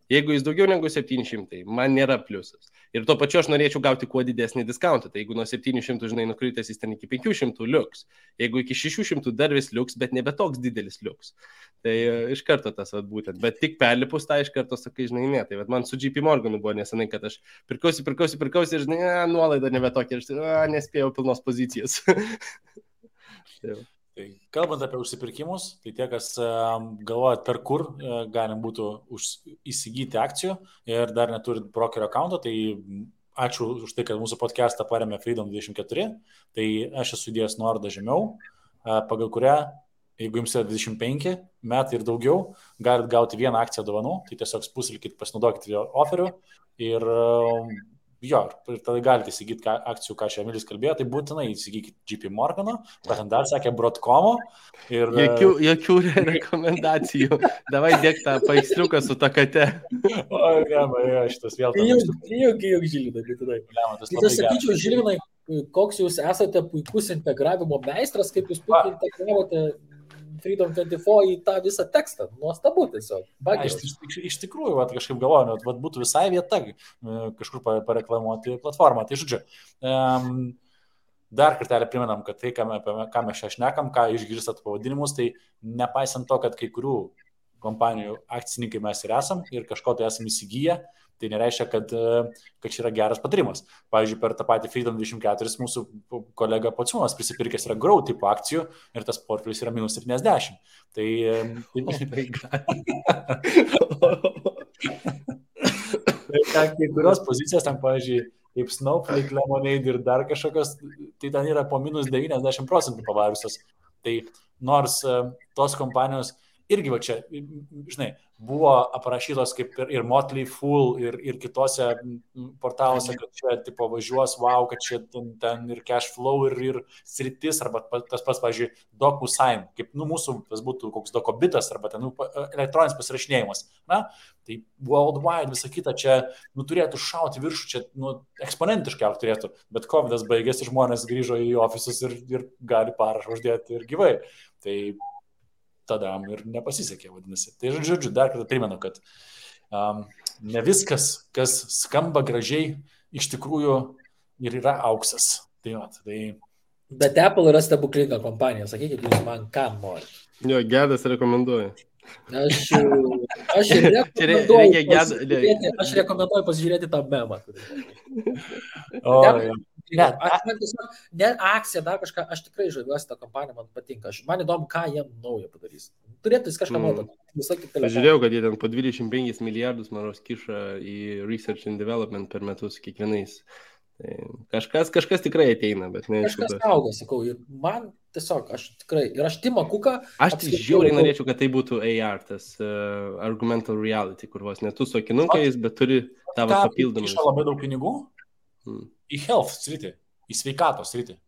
Jeigu jis daugiau negu 700, man nėra pliusas. Ir tuo pačiu aš norėčiau gauti kuo didesnį diskauntą. Tai jeigu nuo 700, žinai, nukritęs jis ten iki 500 liuks. Jeigu iki 600 dar vis liuks, bet nebe toks didelis liuks. Tai iš karto tas būtent. Bet tik perlipus tą iš karto sakai, žinai, ne. Tai man su JP Morganu buvo nesenai, kad aš pirkausi ir, žinai, nuolaida nebe tokia. Ir nespėjau pilnos pozicijos. Tai kalbant apie užsipirkimus, tai tie, kas galvojat, per kur galim būtų įsigyti akcijų ir dar neturit brokerio account'o, tai ačiū už tai, kad mūsų podcastą paremė Freedom24. Tai aš esu įdėjęs nuorodą žemiau, pagal kurią, jeigu jums yra 25 metai ir daugiau, galit gauti vieną akciją dovanų, tai tiesiog spustelkit, pasinaudokit jo oferiu ir ir tada galite įsigyti akcijų, ką čia Emilis kalbėjo, tai būtinai įsigykit JP Morgano, ten dar sakė Broadcomo. Ir jokių rekomendacijų. Davai dėk tą paveiksliuką su ta kate. Šitas vėl. Juk Žilvinai, tai aš sakyčiau, Žilvinai, koks jūs esate puikus integravimo meistras, kaip jūs puikiai integravote Freedom24 į tą visą tekstą. Nuostabu tiesiog. Iš tikrųjų, kažkaip galvoju, būtų visai vieta kažkur pareklamuoti platformą. Tai žodžiu, dar kartelį primenam, kad tai, ką mes čia šnekam, ką išgirstat pavadinimus, tai nepaisant to, kad kai kurių kompanijų akcininkai mes ir esam ir kažko tai esam įsigiję, tai nereiškia, kad čia yra geras patarimas. Pavyzdžiui, per tą patį Freedom24 mūsų kolega Pociūnas prisipirkęs yra Grow tipo akcijų ir tas portfelis yra minus 70. Tai kai kurios pozicijos, ten, pavyzdžiui, kaip Snowflake, Lemonade ir dar kažkokios, tai ten yra po minus 90% pavariusios. Tai nors tos kompanijos irgi va čia, žinai, buvo aprašytos kaip ir Motley Fool ir kitose portaluose, kad čia tipo važiuos, kad čia ten ir cash flow ir sritis, arba tas pats, pavyzdžiui, DocuSign, kaip mūsų tas būtų koks Docobitas, arba ten elektroninis pasirašinėjimas. Na, tai worldwide visą kitą čia turėtų šauti viršų, čia eksponentiškai turėtų, bet COVID'as baigėsi, žmonės grįžo į ofisus ir gali parašą uždėti ir gyvai. Tai tada ir nepasisekė, vadinasi. Tai žodžiu, dar kartą primenu, kad ne viskas, kas skamba gražiai, iš tikrųjų ir yra auksas. Bet Apple yra stebuklinga kompanija, sakykit, jūs man ką nori. Jo, Gedas rekomenduoja. Aš rekomenduoju pasižiūrėti tą memą. Ne akcija, dar kažką, aš tikrai žaviuosi tą kompaniją, man patinka. Man įdomu, ką jie naujo padarys. Turėtų jis kažką naujo. Žiūrėjau, kad jie ten po 25 milijardus, manau, kiša į research and development per metus kiekvienais. Kažkas tikrai ateina, bet ne. Kažkas auga, sakau, ir man tiesiog, aš Timą Kuką... Aš žiauriai norėčiau, kad tai būtų AR, tas argumental reality, kur vos netu su akinukais, bet turi tavo papildomą. Kiša labai daug pinigų į health sritį, į sveikatos sritį.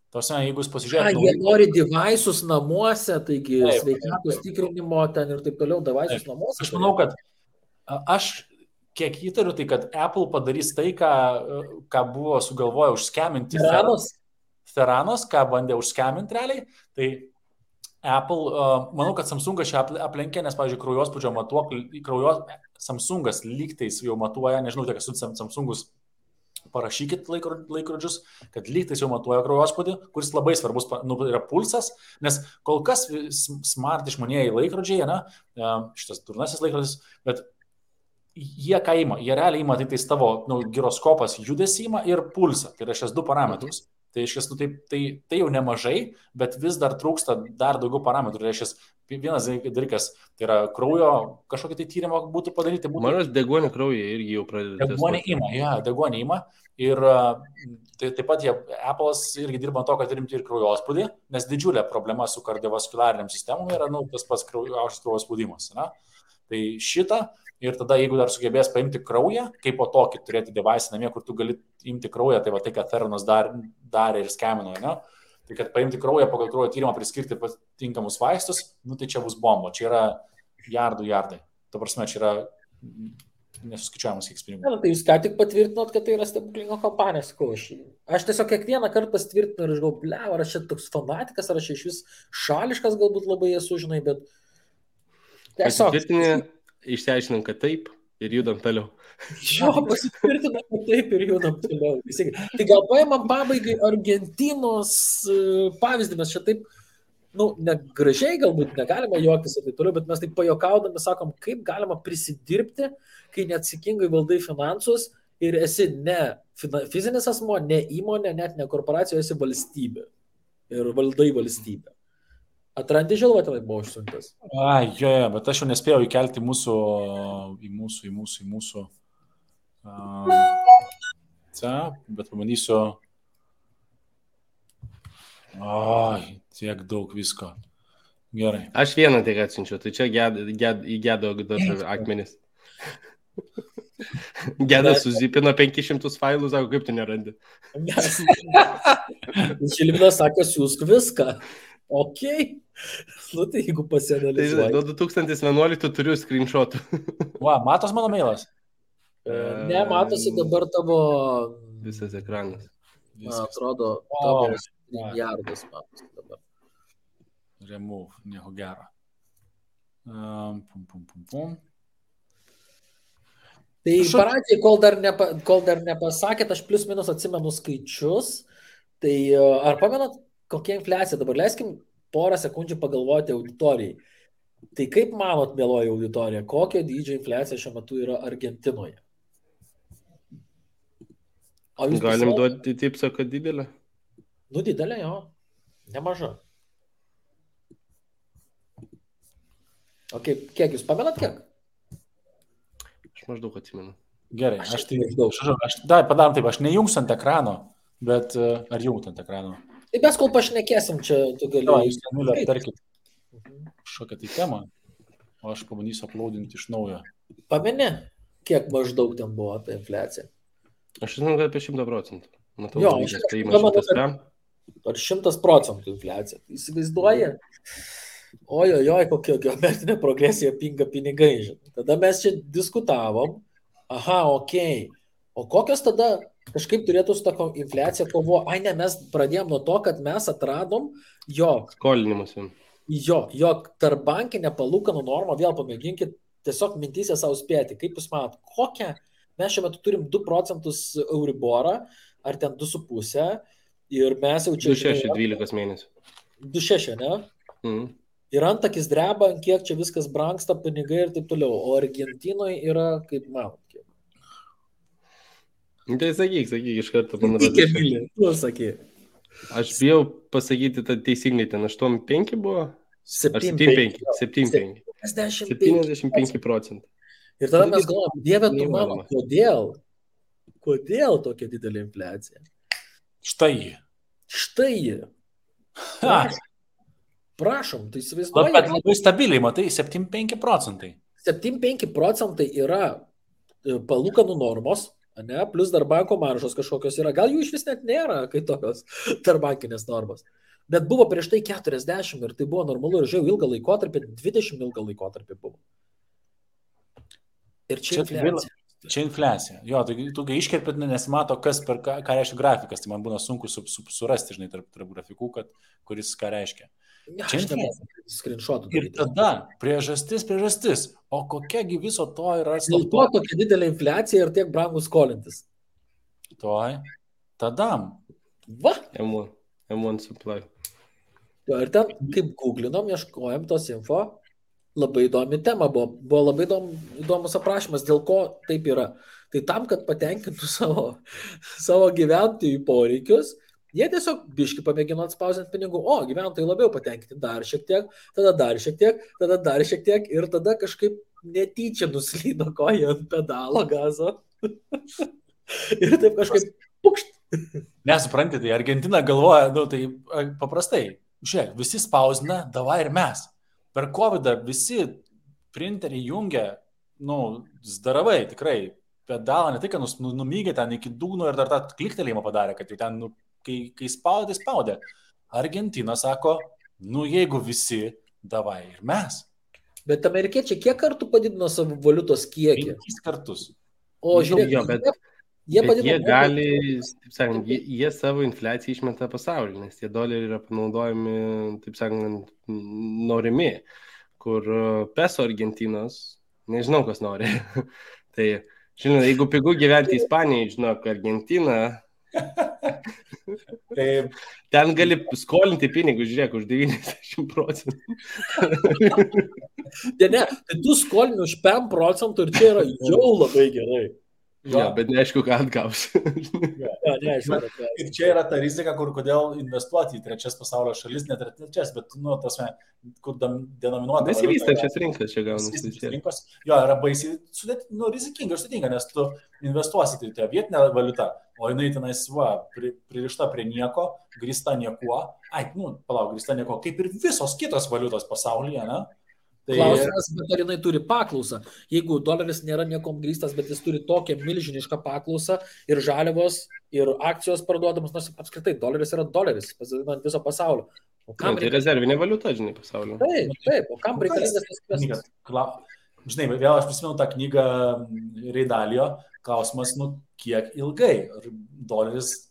Tose, jeigu jūs pasižiūrėtumėte... Jie nori device'us namuose, taigi sveikatos tikrinimo ten ir taip toliau, device'us namuose. Aš manau, kad kiek įtariu, tai kad Apple padarys tai, ką buvo sugalvoję užskeminti Theranos, ką bandė užskeminti realiai, tai Apple, manau, kad Samsungas čia aplenkė, nes, pavyzdžiui, kraujospūdžio matuoklį, Samsungas lygtais jau matuoja, nežinau, tiek esu Samsungus, parašykit laikrodžius, kad lygtais jau matuoja kraujospūdį, kuris labai svarbus yra pulsas, nes kol kas smart išmanieji laikrodžiai, šitas durnasis laikrodis, bet jie ką ima? Jie realiai ima tai tavo giroskopas judesį ima ir pulsą. Tai yra šias du parametrus. Tai tai jau nemažai, bet vis dar trūksta dar daugiau parametrų. Tai vienas dalykas, tai yra kraujo kažkokį tai tyrimą būtų padaryti. Manas deguonį kraują irgi jau pradeda. Deguonį ima. Ir taip pat Apple'as irgi dirba to, kad rimti ir kraujospūdį, nes didžiulė problema su kardiovaskulariniam sistemom yra tas pats aukštas kraujospūdimas. Tai šitą. Ir tada, jeigu dar sugebės paimti kraują, kaip po tokį turėti device namie, kur tu gali imti kraują, tai va tai, kad Theranos darė ir skemino, tai kad paimti kraują, pagal kraujo tyrimą priskirti tinkamus vaistus, tai čia bus bomba, čia yra jardai. Ta prasme, čia yra nesuskaičiuojamas kiek pinigų. Tai jūs ką tik patvirtinot, kad tai yra stebuklinga kompanija, sakau. Aš tiesiog kiekvieną kartą pasitvirtinu ir aš galvoju, ar aš čia toks fanatikas, ar aš iš vis šališkas galbūt labai esu, žinai, bet tiesiog... Išsiaiškinam, kad taip ir judam toliau. Pasitvirtinam, kad taip ir judam toliau. Tai gal paimam pabaigai Argentinos pavyzdį, mes čia taip, negražiai galbūt negalima juoktis ir taip toliau, bet mes taip pajuokaudami sakom, kaip galima prisidirbti, kai neatsakingai valdai finansus ir esi ne fizinis asmo, ne įmonė, net ne korporacija, esi valstybė ir valdai valstybę. Atrandi žilvą tenai buvo užsiuntęs. Bet aš jau nespėjau įkelti į mūsų bet pabandysiu. Tiek daug visko. Gerai. Aš vieną tik atsinčiau, tai čia įgedo dar akmenis. Gedas suzipino 500 failų, sako, kaip tu nerandi. Žilvinas sako, siūsk viską. Okay. Tai jeigu pasianalizuoji. Nuo 2011 turiu screenshotų. Matos mano mailas? Ne, matosi dabar tavo... Visas ekranas. Atrodo, tavo milijardas matosi dabar. Remove, nieko gero. Tai pradžiai, kol dar nepasakėt, aš plius minus atsimenu skaičius. Tai ar pamenat, kokia infliacija dabar? Leiskim porą sekundžių pagalvoti auditorijai. Tai kaip manot, mieloji auditorija, kokio dydžio infliacija šiuo metu yra Argentinoje? Galim duoti tipsą, kad didelė? Didelė, jo. Nemaža. O kiek jūs pamenat, kiek? Aš maždaug atsimenu. Gerai, padarom taip, aš nejungsiu ant ekrano, bet ar jungt ant ekrano? Tai mes kol pašnekėsim čia, tu gali... Jūs ten aptarkit kažkokią tai temą, o aš pabandysiu uploadinti iš naujo. Pameni, kiek maždaug ten buvo ta infliacija? Aš žinau, kad apie 100%. Matau, jo, ar 100% infliacija. Įsivaizduoja? Ojojoj, kokia geometrinė progresija pinga pinigai. Tada mes čia diskutavom. O kokios tada kažkaip turėtų su tą infliaciją kovo? Ne, mes pradėjom nuo to, kad mes atradom, jog skolinimas. Jog tarpbankinė palūkanų norma, vėl pamėginkit tiesiog mintysė savo spėti, kaip jūs manot, kokią, mes šiuo metu turim 2 procentus Euriborą, ar ten 2,5, ir mes jau čia... 2,6 12 mėnesių. 2,6, ne? Ir antakis dreba, kiek čia viskas brangsta, pinigai ir taip toliau, o Argentinoje yra, kaip manot, kiek? Tai sakyk, iš karto Tik, Emilija, tu sakyk. Aš bijau pasakyti, tai teisingai ten 8,5 buvo? 7,5. 7,5. 75 procentų. Ir tada mes galvojame, Dieve, tu mano, kodėl tokia didelė infliacija? Štai ji. Prašom, tai įsivaizduoju. Bet labai stabiliai, matai, 7,5 procentai. 7,5 procentai yra palūkanų normos, ne, plus dar banko maržos kažkokios yra. Gal jų iš vis net nėra, kai tokios tarbankinės normos. Bet buvo prieš tai 40 ir tai buvo normalu ir žiau ilgą laikotarpį, 20 ilgą laikotarpį buvo. Ir čia infliacija. Čia infliacija. Jo, tu iškerpėt, nesimato, kas per ką reiškia grafikas, tai man būna sunku surasti, žinai, tarp grafikų, kuris ką reiškia. Čia infliacija. Ir tada priežastis. O kokiagi viso to yra? Dėl to tokia didelė infliacija ir tiek brangus skolintis. Tada. Va. M1 supply. Ir ten, kaip googlinom, ieškojom tos info, labai įdomi tema buvo labai įdomus aprašymas, dėl ko taip yra. Tai tam, kad patenkintų savo gyventojų poreikius, jie tiesiog biški pamėgino atspausinti pinigų. O, gyventojai labiau patenkinti dar šiek tiek, tada dar šiek tiek, tada dar šiek tiek ir tada kažkaip netyčia nuslydo koja ant pedalo gazo. Ir taip kažkaip pukšt. Nesuprantate, tai Argentina galvoja, tai paprastai, žiūrėk, visi spausina, davai ir mes. Per COVID visi printeriai jungia, zdaravai, tikrai, pedalą, ne tai, kad numygė ten iki dugno ir dar tą kliktelėjimą padarė, kad jau ten, kai spaudė, tai spaudė. Argentina sako, jeigu visi, davai ir mes. Bet amerikiečiai kiek kartų padidino savo valiutos kiekį? 5 kartus. O žiūrėk, jie gali, taip sakant, jie savo infliaciją išmeta pasaulį, nes tie doleriai yra panaudojami, taip sakant, norimi, kur peso Argentinos, nežinau, kas nori. Tai, žinot, jeigu pigu gyventi Ispanijai, žinok, Argentina, ten gali skolinti pinigus, žiūrėk, už 90 procentų. Ne, tai tu skolini už 5 procentų ir čia yra jau labai gerai. Ja, bet neaišku, ką atgaus. Ir čia yra ta rizika, kodėl investuoti į trečias pasaulio šalis, net ir trečias, bet, kur denominuota. Besivystančias rinkas čia gaunasi. Rinkos, yra baisiai rizikinga ir sudėtinga, nes tu investuosi į tą vietinę valiutą, o jinai tenais, pririšta prie nieko, grįsta niekuo. Grįsta nieko, kaip ir visos kitos valiutos pasaulyje, ne? Klausimas, bet ar jinai turi paklausą. Jeigu doleris nėra niekom grįstas, bet jis turi tokią milžinišką paklausą ir žaliavos, ir akcijos parduodamos, nors apskritai doleris yra doleris, pasidinant viso pasaulio. Tai rezervinė valiuta, žinai, pasaulio. Taip, o kam reikalingas tas kvestas? Žinai, vėl aš prisimenu tą knygą Reidalio, klausimas, kiek ilgai doleris,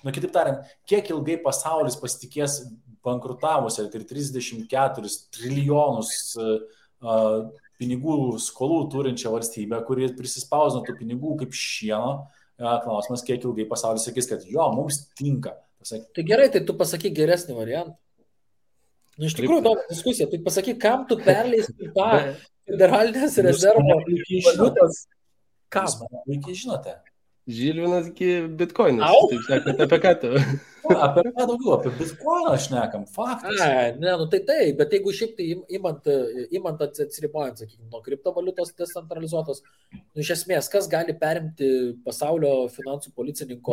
kitaip tariant, kiek ilgai pasaulis pasitikės bankrutavusią ir 34 trilijonus pinigų skolų turinčią valstybę, kuri prisispausino tų pinigų kaip šieno. Klausimas, kiek ilgai pasaulis sakys, kad mums tinka. Tai gerai, tai tu pasakyk geresnį variantą. Iš tikrųjų, įdomi diskusija. Tai pasakyk, kam tu perleisi tą federalinės rezervo valiutos? Kam? Puikiai žinote. Žilvinas bitkoinas. Taip sakant, apie ką tu? Apie ką daugiau, apie bitkoiną šnekam, faktas. Tai, bet jeigu šiaip tai imant atsiribojant, sakykime, nuo kriptovaliutos decentralizuotos, iš esmės, kas gali perimti pasaulio finansų policininko?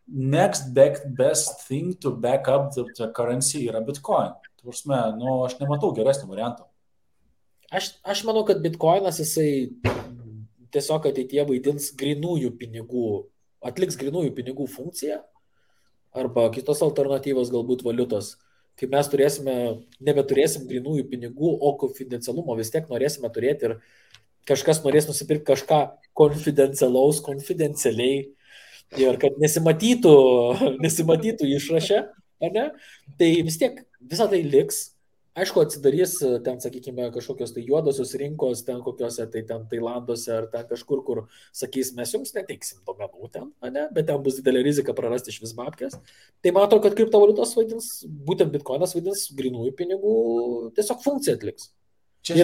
Next best thing to back up the currency yra bitcoin. Tursme, aš nematau geresnio varianto. Aš manau, kad bitkoinas jisai tiesiog ateityje vaidins grinųjų pinigų, atliks grinųjų pinigų funkciją arba kitos alternatyvos galbūt valiutos. Kai mes nebeturėsim grinųjų pinigų, o konfidencialumo vis tiek norėsime turėti ir kažkas norės nusipirkti kažką konfidencialiai ir kad nesimatytų išraše, ne? Tai vis tiek visą tai liks. Aišku, atsidarys ten, sakykime, kažkokios tai juodosios rinkos, ten kokiuose, tai ten Tailanduose ar ten kažkur, kur sakys, mes jums neteiksim duomenų ten, ne? Bet ten bus didelė rizika prarasti iš vis babkės. Tai matau, kad kriptovaliutos vaidins, būtent bitkoinas vaidins grinųjų pinigų tiesiog funkciją atliks. Čia,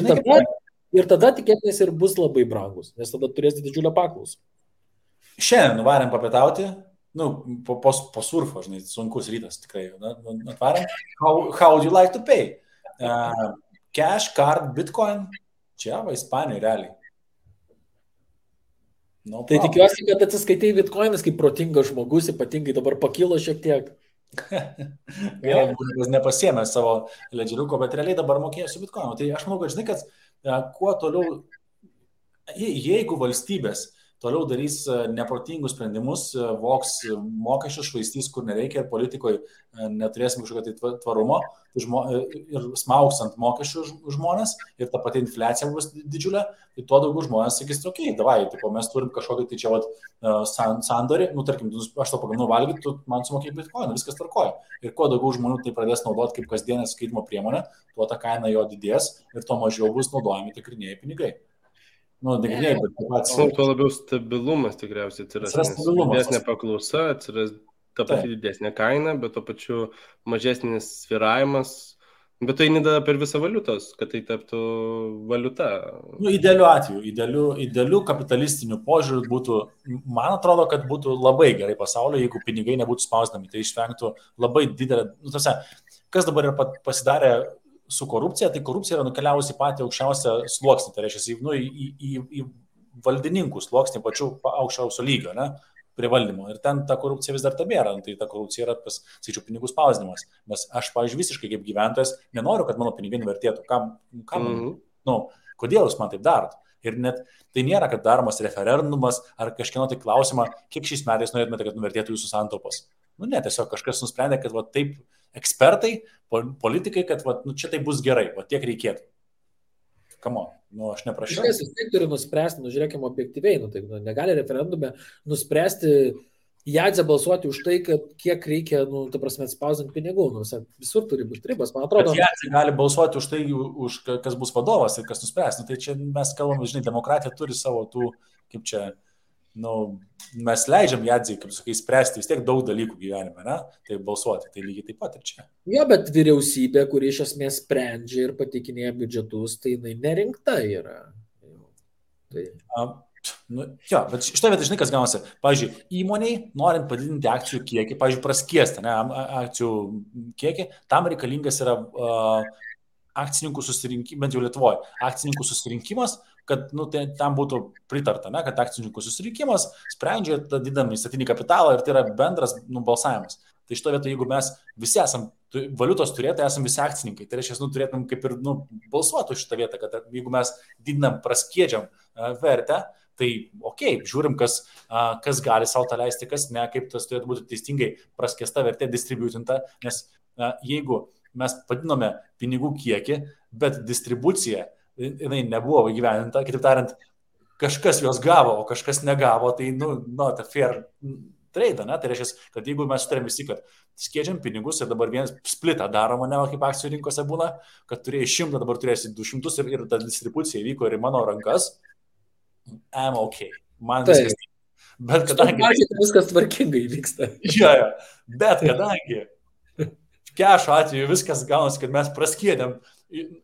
Ir tada tikėtinės ir bus labai brangus, nes tada turės didžiulę paklausą. Šiandien nuvarėm papietauti, po surfo, žinai, sunkus rytas tikrai, atvarėm. How would you like to pay? Cash, card, bitcoin, čia va, Ispanijoje realiai. No tai tikiuosi, kad atsiskaitai bitcoinas kaip protingas žmogus, ypatingai dabar pakilo šiek tiek. Gerai, nepasiėmė savo ledžeriuko, bet realiai dabar mokėjo su bitcoinu. Tai aš manau, kad žinai, kad kuo toliau, jeigu valstybės toliau darys neprotingus sprendimus, voks mokesčius, švaistys, kur nereikia ir politikoje neturėsim kažkokio tai tvarumo ir smaugs ant mokesčių žmonės ir ta pati infliacija bus didžiulė, tai tuo daugiau žmonės sakys, okei, davai, mes turim kažkokį tai čia sandorį, tarkim, aš to pagaminu valgyti, tu man sumokėjai bitcoiną, viskas tvarkoja. Ir kuo daugiau žmonių tai pradės naudoti kaip kasdienę skaitimo priemonę, tuo ta kaina jo didės ir tuo mažiau bus naudojami tikrinieji pinigai. Negirdėjai, bet pats. Tuo labiau stabilumas tikriausiai atsiras. Didesnė paklausa, atsiras ta pati didesnė kaina, bet to pačiu mažesnis sviravimas. Bet tai nedada per visą valiutos, kad tai taptų valiuta. Idealiu atveju, idealiu kapitalistiniu požiūriu būtų, man atrodo, kad būtų labai gerai pasaulio, jeigu pinigai nebūtų spausdami. Tai išvengtų labai didelę, kas dabar yra pasidarė su korupcija, tai korupcija yra nukeliavusi patį aukščiausią sluoksnį, tai reiškia į valdininkų sluoksnį pačių aukščiausio lygio, ne, prie valdymo. Ir ten ta korupcija vis dar tabėra, tai ta korupcija yra, sakyčiau, pinigų spausdinimas. Nes aš, pavyzdžiui, visiškai kaip gyventojas nenoriu, kad mano pinigai nuvertėtų. Kodėl jūs man taip darot? Ir net tai nėra, kad daromas referendumas ar kažkieno tai klausimą, kiek šiais metais norėtumėte, kad nuvertėtų jūsų santaupos. Ne, tiesiog kažkas nusprendė, kad taip ekspertai, politikai, kad čia tai bus gerai, tiek reikėtų. Kamo, aš neprašiau. Kažkas vis tiek turi nuspręsti, žiūrėkime objektyviai, negali referendume nuspręsti Jadzę balsuoti už tai, kad kiek reikia, ta prasme, spausdinti pinigų, visur turi būti ribas, man atrodo. Bet Jadzė gali balsuoti už tai, kas bus vadovas ir kas nuspręs. Tai čia mes kalbame, žinai, demokratija turi savo tų, kaip čia, mes leidžiam Jadzei, kaip sakai, spręsti vis tiek daug dalykų gyvenime, ne? Tai balsuoti, tai lygiai taip pat ir čia. Jo, bet vyriausybė, kuri iš esmės sprendžia ir pateikinėja biudžetus, tai jinai nerinkta yra. Jo, bet šitą vietą, žinai, kas gaunasi. Pavyzdžiui, įmoniai, norint padidinti akcijų kiekį, pavyzdžiui, praskiesti, akcijų kiekį, tam reikalingas yra akcininkų susirinkimas, bent jau Lietuvoje, akcininkų susirinkimas, kad tam būtų pritarta, kad akcininkų susirinkimas sprendžia tą didinamą įstatinį kapitalą ir tai yra bendras balsavimas. Tai šito vietą, jeigu mes visi esam valiutos turėtojai, esam visi akcininkai, tai reiškia, turėtum kaip ir balsuoti už šitą vietą, kad jeigu mes didinam, praskiedžiam vertę, tai žiūrim, kas gali savo tą leisti, kas ne, kaip tas turėtų būti teisingai praskiesta vertė, distributinta, nes jeigu mes padinome pinigų kiekį, bet distribucija jinai nebuvo įgyvendinta, kitaip tariant, kažkas juos gavo, o kažkas negavo, tai, ta fair trade, ne? Tai reiškia, kad jeigu mes sutarėm visi, kad skiedžiam pinigus ir dabar vienas splitą daroma, ne, kaip akcijų rinkose būna, kad turėjai 100, dabar turėsi 200 ir ta distribucija įvyko ir į mano rankas, I'm okay. Man viskas. Bet kadangi... Viskas tvarkingai vyksta. Jo, bet kadangi kešo atveju viskas gaunasi, kad mes praskiedėm,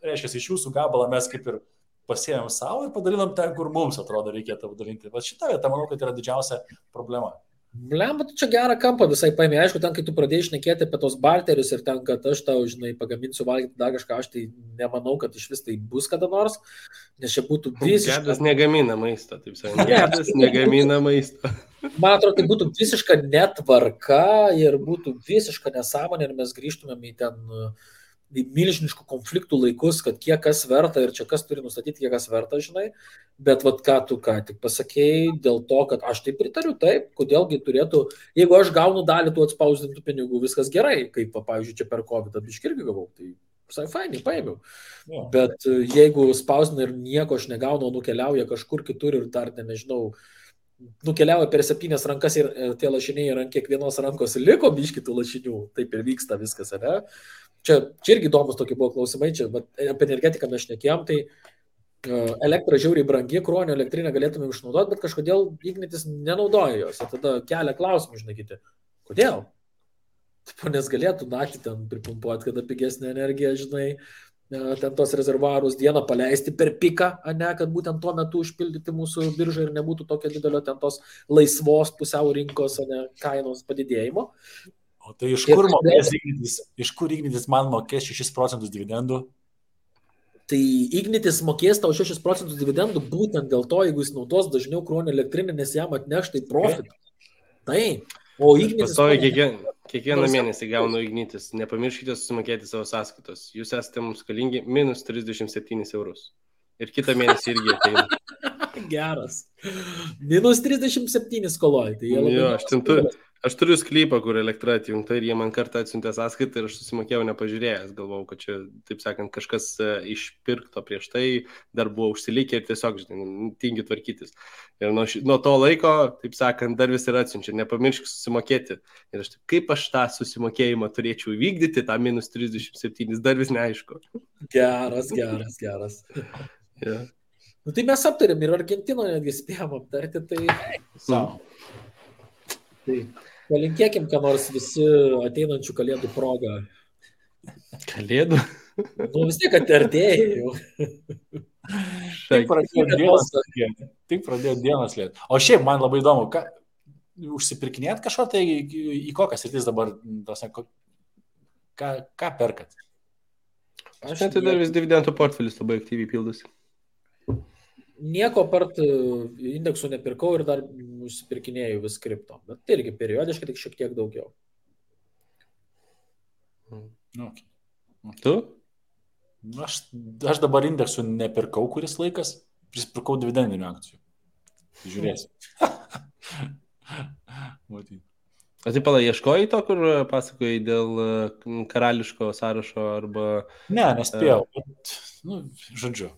reiškia, iš jūsų gabalą mes kaip ir pasėjom savo ir padalinam ten, kur mums atrodo reikėtų padalinti. Bet šitą vietą, manau, kad yra didžiausia problema. Blemba, tu čia gerą kampą visai paėmė. Aišku, ten, kai tu pradėjai šnekėti apie tos barterius ir ten, kad aš tau, žinai, pagaminsiu valgyti dar kažką, aš tai nemanau, kad iš vis tai bus kada nors, nes čia būtų visiškai... Gedas negamina maisto, taip sakant. Gedas negamina maisto. Man atrodo, tai būtų visiška netvarka ir būtų visiška nesąmonė ir mes grįžtumėm į ten į milžiniškų konfliktų laikus, kad kiek kas verta ir čia kas turi nustatyti, kiek kas verta, žinai, bet ką tu ką tik pasakėjai dėl to, kad aš tai pritariu, taip, kodėlgi turėtų, jeigu aš gaunu dalį tų atspausdintų pinigų, viskas gerai, kaip, pavyzdžiui, čia per COVID biškį irgi gavau, tai visai fainai, paėmiau. Ja. Bet jeigu spausdina ir nieko aš negaunu, nukeliauja kažkur kitur ir dar, nežinau, nukeliavo per 7 rankas ir tie lašiniai ant kiekvienos rankos liko biški tų lašinių, taip ir vyksta viskas, ne? Čia irgi įdomus tokie buvo klausimai, čia apie energetiką mes šnekėjom, tai elektra žiauriai brangi, Kruonio elektrinę galėtume išnaudoti, bet kažkodėl Ignitis nenaudoja jos, ir tada kelia klausimų, žinokite, kodėl? Nes galėtų naktį ten pripumpuoti, kada pigesnė energija, žinai, ten tos rezervuarus dieną paleisti per piką, ne, kad būtent tuo metu užpildyti mūsų biržą ir nebūtų tokio didelio ten tos laisvos pusiau rinkos, ne, kainos padidėjimo. O tai iš kur mokės Ignitis? Iš kur Ignitis man mokės 6% dividendų? Tai Ignitis mokės tau 6% dividendų būtent dėl to, jeigu jis naudos dažniau Kruonio elektrinę, nes jam atneš tai profit. Taip. O Ignitis... Kiekvieną mėnesį gaunu Ignitis. Nepamirškite susimokėti savo sąskaitos. Jūs esate mums skalingi minus 37 eurus. Ir kitą mėnesį irgi ateina. Geras. Minus 37 skoloj. Tai jo, aš turiu sklypą, kur elektra atjungta ir jie man kartą atsiuntė sąskaitą ir aš susimokėjau nepažiūrėjęs. Galvojau, kad čia, taip sakant, kažkas išpirkto prieš tai, dar buvo užsilikę ir tiesiog, žinai, tingi tvarkytis. Ir nuo to laiko, taip sakant, dar vis ir atsiunčia. Nepamiršk susimokėti. Ir aš taip, kaip aš tą susimokėjimą turėčiau įvykdyti, tą minus 37, dar vis neaišku. Geras. Yeah. Nu, tai mes aptarėm ir Argentinoje netgi spėjom aptarti, tai... Tai palinkėkim, ką nors visi ateinančių kalėdų progą. Kalėdų? Nu vis tiek artėja jau. Tik pradėjo dienas lėti. O šiaip man labai įdomu, užsipirkinėt kažko, tai į kokias rytis dabar, ką perkat? Aš net dar vis dividendų portfelis labai aktyviai pildosi. Nieko apart indeksų nepirkau ir dar užsipirkinėjau vis kripto. Bet tai irgi periodiškai, tik šiek tiek daugiau. Okay. Tu? Aš dabar indeksų nepirkau kuris laikas, prisipirkau dividendinių akcijų. Žiūrėsim. O tai pala, ieškojai to, kur pasakojai dėl karališko sąrašo arba... Ne, nespėjau. Bet, žodžiu.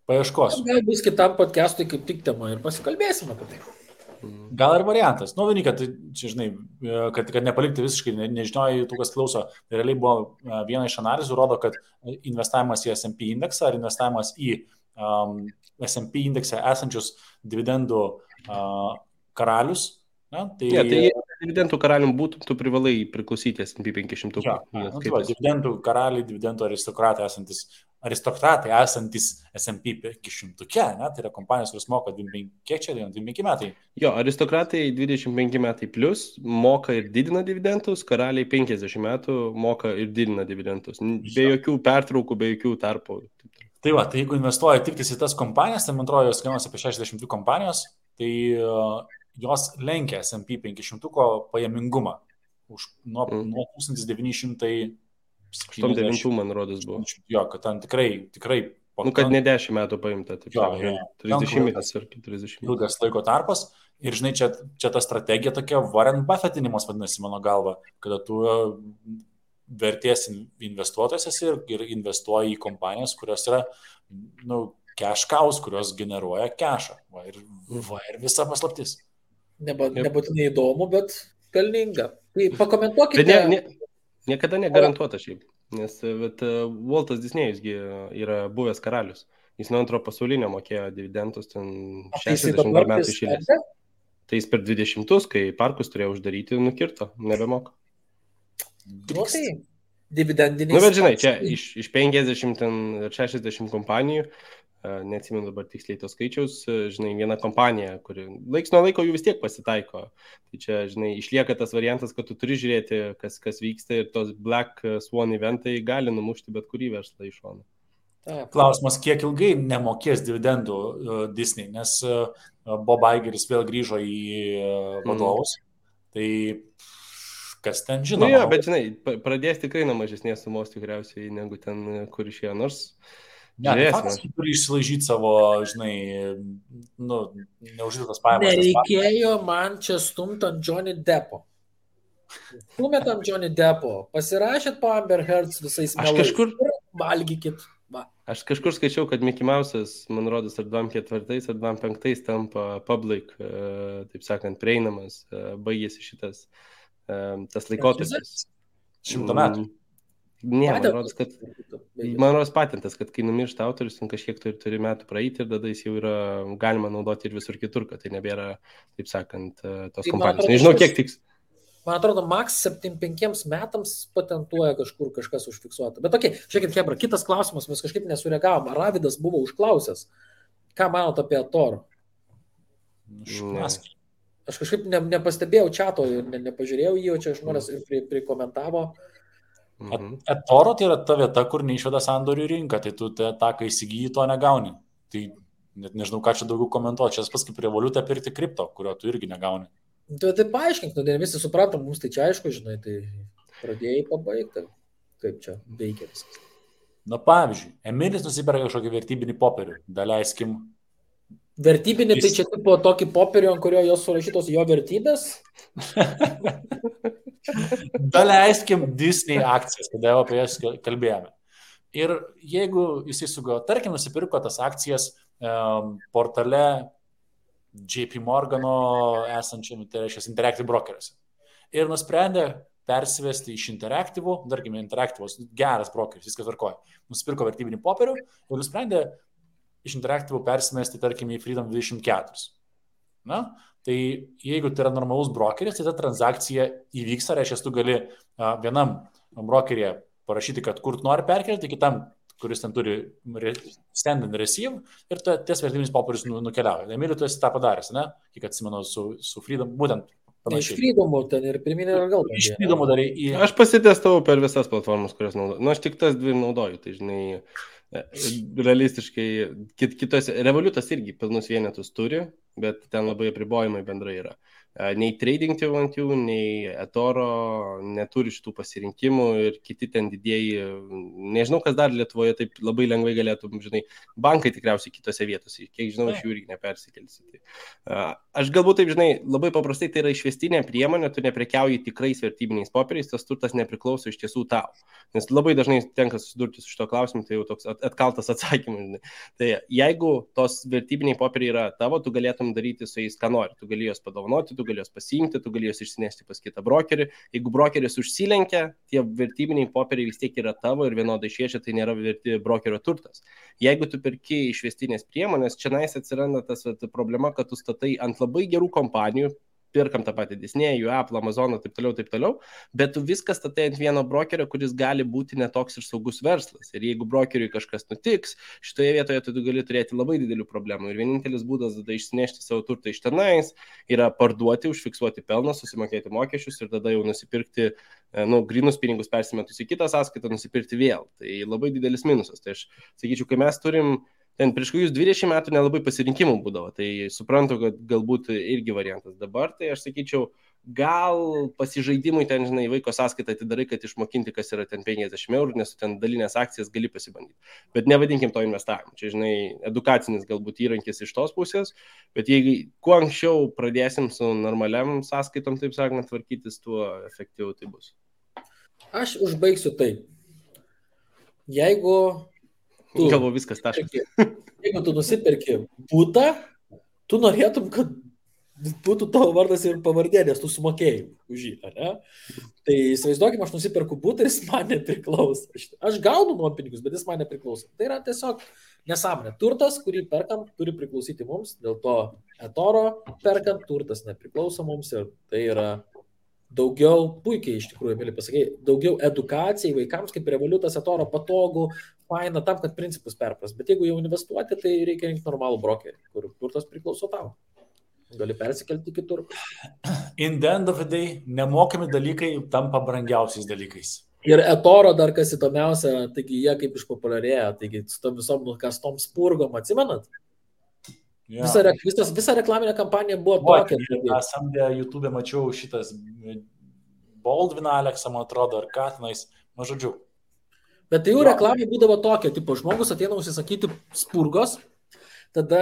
Paieškosiu. Gal bus kitam podcast'ui kaip tik tema ir pasikalbėsime apie tai. Gal ir variantas. Vienika, tai čia, žinai, kad nepalikti visiškai nežinojai tų, kas klauso. Tai realiai buvo viena iš analizų, rodo, kad investavimas į S&P indeksą ar investavimas į S&P indekse esančius dividendų karalius. Tai dividendų karalium būtų, tu privalai priklausyti S&P 500. Dividendų karaliai, dividendų aristokratai esantis S&P 500, ne? Tai yra kompanijos, kuris moka 25 metai. Jo, aristokratai 25 metai plus moka ir didina dividendus, karaliai 50 metų moka ir didina dividendus. Be jokių pertraukų, be jokių tarpų. Tai va, tai jeigu investuoja tik į tas kompanijas, tai man atrodo, jos kainuoja apie 62 kompanijos, tai jos lenkia S&P 500 pajamingumą nuo 1900 89, man rodos, buvo. Jo, kad ten tikrai... kad ne 10 metų paimta, taip. Jo. 30 metais ar 40. Ilgas laiko tarpas. Ir žinai, čia ta strategija tokia Warren Buffettinimas vadinasi mano galva, kada tu vertės investuotojas esi ir investuoji į kompanijas, kurios yra, cash cows, kurios generuoja cashą. Ir visa paslaptis. Nebūtinai įdomu, bet pelninga. Tai pakomentuokite... Niekada negarantuota šiaip, nes Waltas Disnėjusgi yra buvęs karalius. Jis nuo antro pasaulinio mokėjo dividendus ten 60 metų išėlės. Tai jis per 20, kai parkus turėjo uždaryti, nukirto, nebemoka. Tai dividendiniai... Bet žinai, čia iš 50 ir 60 kompanijų, neatsimenu dabar tiksliai tos skaičiaus, žinai, viena kompanija, kuri laiks nuo laiko jų vis tiek pasitaiko. Tai čia, žinai, išlieka tas variantas, kad tu turi žiūrėti, kas vyksta ir tos Black Swan eventai gali numušti bet kurį verslą iš šono. Klausimas, kiek ilgai nemokės dividendų Disney, nes Bob Igeris vėl grįžo į vadovus. Tai kas ten žinoma. Jo, bet žinai, pradės tikrai nuo mažesnės sumos tikriausiai negu ten, kur išėjo, nors... Ne, faktas, tu turi išsilaižyti savo, žinai, neuždirbtas pajamas. Nereikėjo man čia stumt ant Johnny Deppo. Stumėt ant Johnny Deppo. Pasirašėt po Amber Heards visais melais. Kažkur... Valgykit. Va. Aš kažkur skaičiau, kad Mickey Mouse'as, man rodos, ar 24 ar 25 tampa public, taip sakant, prieinamas, baigėsi šitas tas laikotarpis. 100 metų. Ne, man rodos patentas, kad kai numiršta autorius, ten kažkiek turi metų praeiti ir tada jis jau yra galima naudoti ir visur kitur, kad tai nebėra, taip sakant, tos kompanijos. Nežinau, kiek tiks. Man atrodo, Max 75 metams patentuoja kažkur kažkas užfiksuota. Bet okei, žiūrėkit, Hebra, kitas klausimas, mes kažkaip nesureagavom. Ravidas buvo užklausęs. Ką manot apie Thor? Aš kažkaip nepastebėjau čato ir nepažiūrėjau jį, o čia žmonės ir prikomentavo. Toro tai yra ta vieta, kur neišveda sandorių rinką, tai tu tą, kai įsigyji, to negauni. Tai net nežinau, ką čia daugiau komentuoti. Čia pas kaip revoliutą pirkti kripto, kurio tu irgi negauni. Tai paaiškink, visi suprantam, mums tai čia aišku, žinai, tai pradėjai pabaigti, kaip čia veikia viskas. Na pavyzdžiui, Emilis nusiperka kažkokį vertybinį popierių, daleiskim. Vertybinį, tai čia tipo tokį popierių, ant kurio jos surašytos jo vertybės? Daleiskim Disney akcijas, kada jau apie jas kalbėjome. Ir jeigu jisai sugalvojo, tarkim, nusipirko tas akcijas portale JP Morgano esančiam, tai reiškia Interactive brokeriuose. Ir nusprendė persivesti iš Interactive, tarkime, Interactive'os geras brokeris, viskas tvarkoja. Nusipirko vertybinį popierių ir nusprendė iš Interactive persimesti, tarkime, į Freedom 24. Na, tai jeigu tai yra normalus brokeris, tai ta transakcija įvyksta, reiškia, tu gali vienam brokerėje parašyti, kad kur nori perkelti, kitam, kuris ten turi stand and receive, ir ties vertybinis popierius nukeliauja. Emilio, tu esi tą padaręs, ne? Kiek atsimenu su Freedom, būtent panašiai. Iš Freedomo ten ir pirminė ir gal. Iš Freedomo darai į... Aš pasitestavau per visas platformas, kurias naudoju. Nu, aš tik tas dvi naudoju, tai žinai, realistiškai, kitose, Revolutas irgi pilnus vienetus turi, bet ten labai apribojimai bendrai yra. Nei Trading212, nei eToro neturi šitų pasirinkimų ir kiti ten didieji, nežinau, kas dar Lietuvoje taip labai lengvai galėtų, žinai, bankai tikriausiai kitose vietose, kiek žinau, iš jų irgi nepersikelsi. Aš galbūt taip, žinai, labai paprastai tai yra išvestinė priemonė, tu neprekiauji tikrais vertybiniais popieriais, tas turtas nepriklauso iš tiesų tau. Nes labai dažnai tenka susidurti su šito klausimu, tai jau toks atkaltas atsakymas. Žinai. Tai jeigu tos vertybiniai popieriai yra tavo, tu galėtum daryti su jais, ką nori. Tu gali juos padovanoti, tu gali juos pasiimti, tu gali juos išsinešti pas kitą brokerį. Jeigu brokeris užsilenkia, tie vertybiniai popieriai vis tiek yra tavo ir vienodai šviečia, tai nėra verti brokerio turtas. Jeigu tu perki išvestinės priemonės, čia atsiranda tas problema, kad tu statai ant labai gerų kompanijų, pirkam tą patį Disney, Apple, Amazon, taip toliau, bet tu viskas statai ant vieno brokerio, kuris gali būti netoks ir saugus verslas. Ir jeigu brokeriui kažkas nutiks, šitoje vietoje tu gali turėti labai didelių problemų. Ir vienintelis būdas tada išsinešti savo turtą iš tenais yra parduoti, užfiksuoti pelną, susimokėti mokesčius ir tada jau nusipirkti, grynus pinigus persimetus į kitą sąskaitą, nusipirkti vėl. Tai labai didelis minusas. Tai aš sakyčiau, kai mes turim ten prieš kokius 20 metų nelabai pasirinkimų būdavo, tai suprantu, kad galbūt irgi variantas. Dabar tai aš sakyčiau, gal pasižaidimui ten, žinai, vaiko sąskaitą atidarai, kad išmokinti, kas yra ten 50 €, nes ten dalinės akcijas gali pasibandyti. Bet nevadinkim to investavimu. Čia, žinai, edukacinis galbūt įrankis iš tos pusės, bet jeigu kuo anksčiau pradėsim su normaliam sąskaitom, taip sakant, tvarkytis, tuo efektyviau tai bus. Aš užbaigsiu taip. Jeigu Galvo viskas taškas. Jeigu tu nusipirki butą, tu norėtum, kad būtų tavo vardas ir pavardė, nes tu sumokėjai už jį, ne? Tai įsivaizduokim, aš nusipirku butą ir jis man nepriklauso. Aš gaunu nuompinigus, bet jis man nepriklauso. Tai yra tiesiog nesąmonė. Turtas, kurį perkam, turi priklausyti mums, dėl to eToro perkant, turtas nepriklauso mums ir tai yra daugiau, puikiai iš tikrųjų, mėly pasakėjai, daugiau edukacijai vaikams, kaip Revolutas, eToro patogu, faina tam, kad principus perpras. Bet jeigu jau investuoti, tai reikia rinkti normalų brokerį, kur turtas priklauso tau. Gali persikelti kitur. In the end of the day, nemokami dalykai tampa brangiausiais dalykais. Ir eToro dar kas įdomiausia, taigi jie kaip išpopuliarėja, taigi su tom visom nukastom spurgom, atsimenat? Ja. Visa reklaminė kampanija buvo tokia. Samdė YouTube mačiau šitas Baldwin Aleksą, man atrodo, ar ką tenais, žodžiu. Bet tai jų reklamai būdavo tokia, tipo, žmogus ateina užsisakyti spurgos, tada,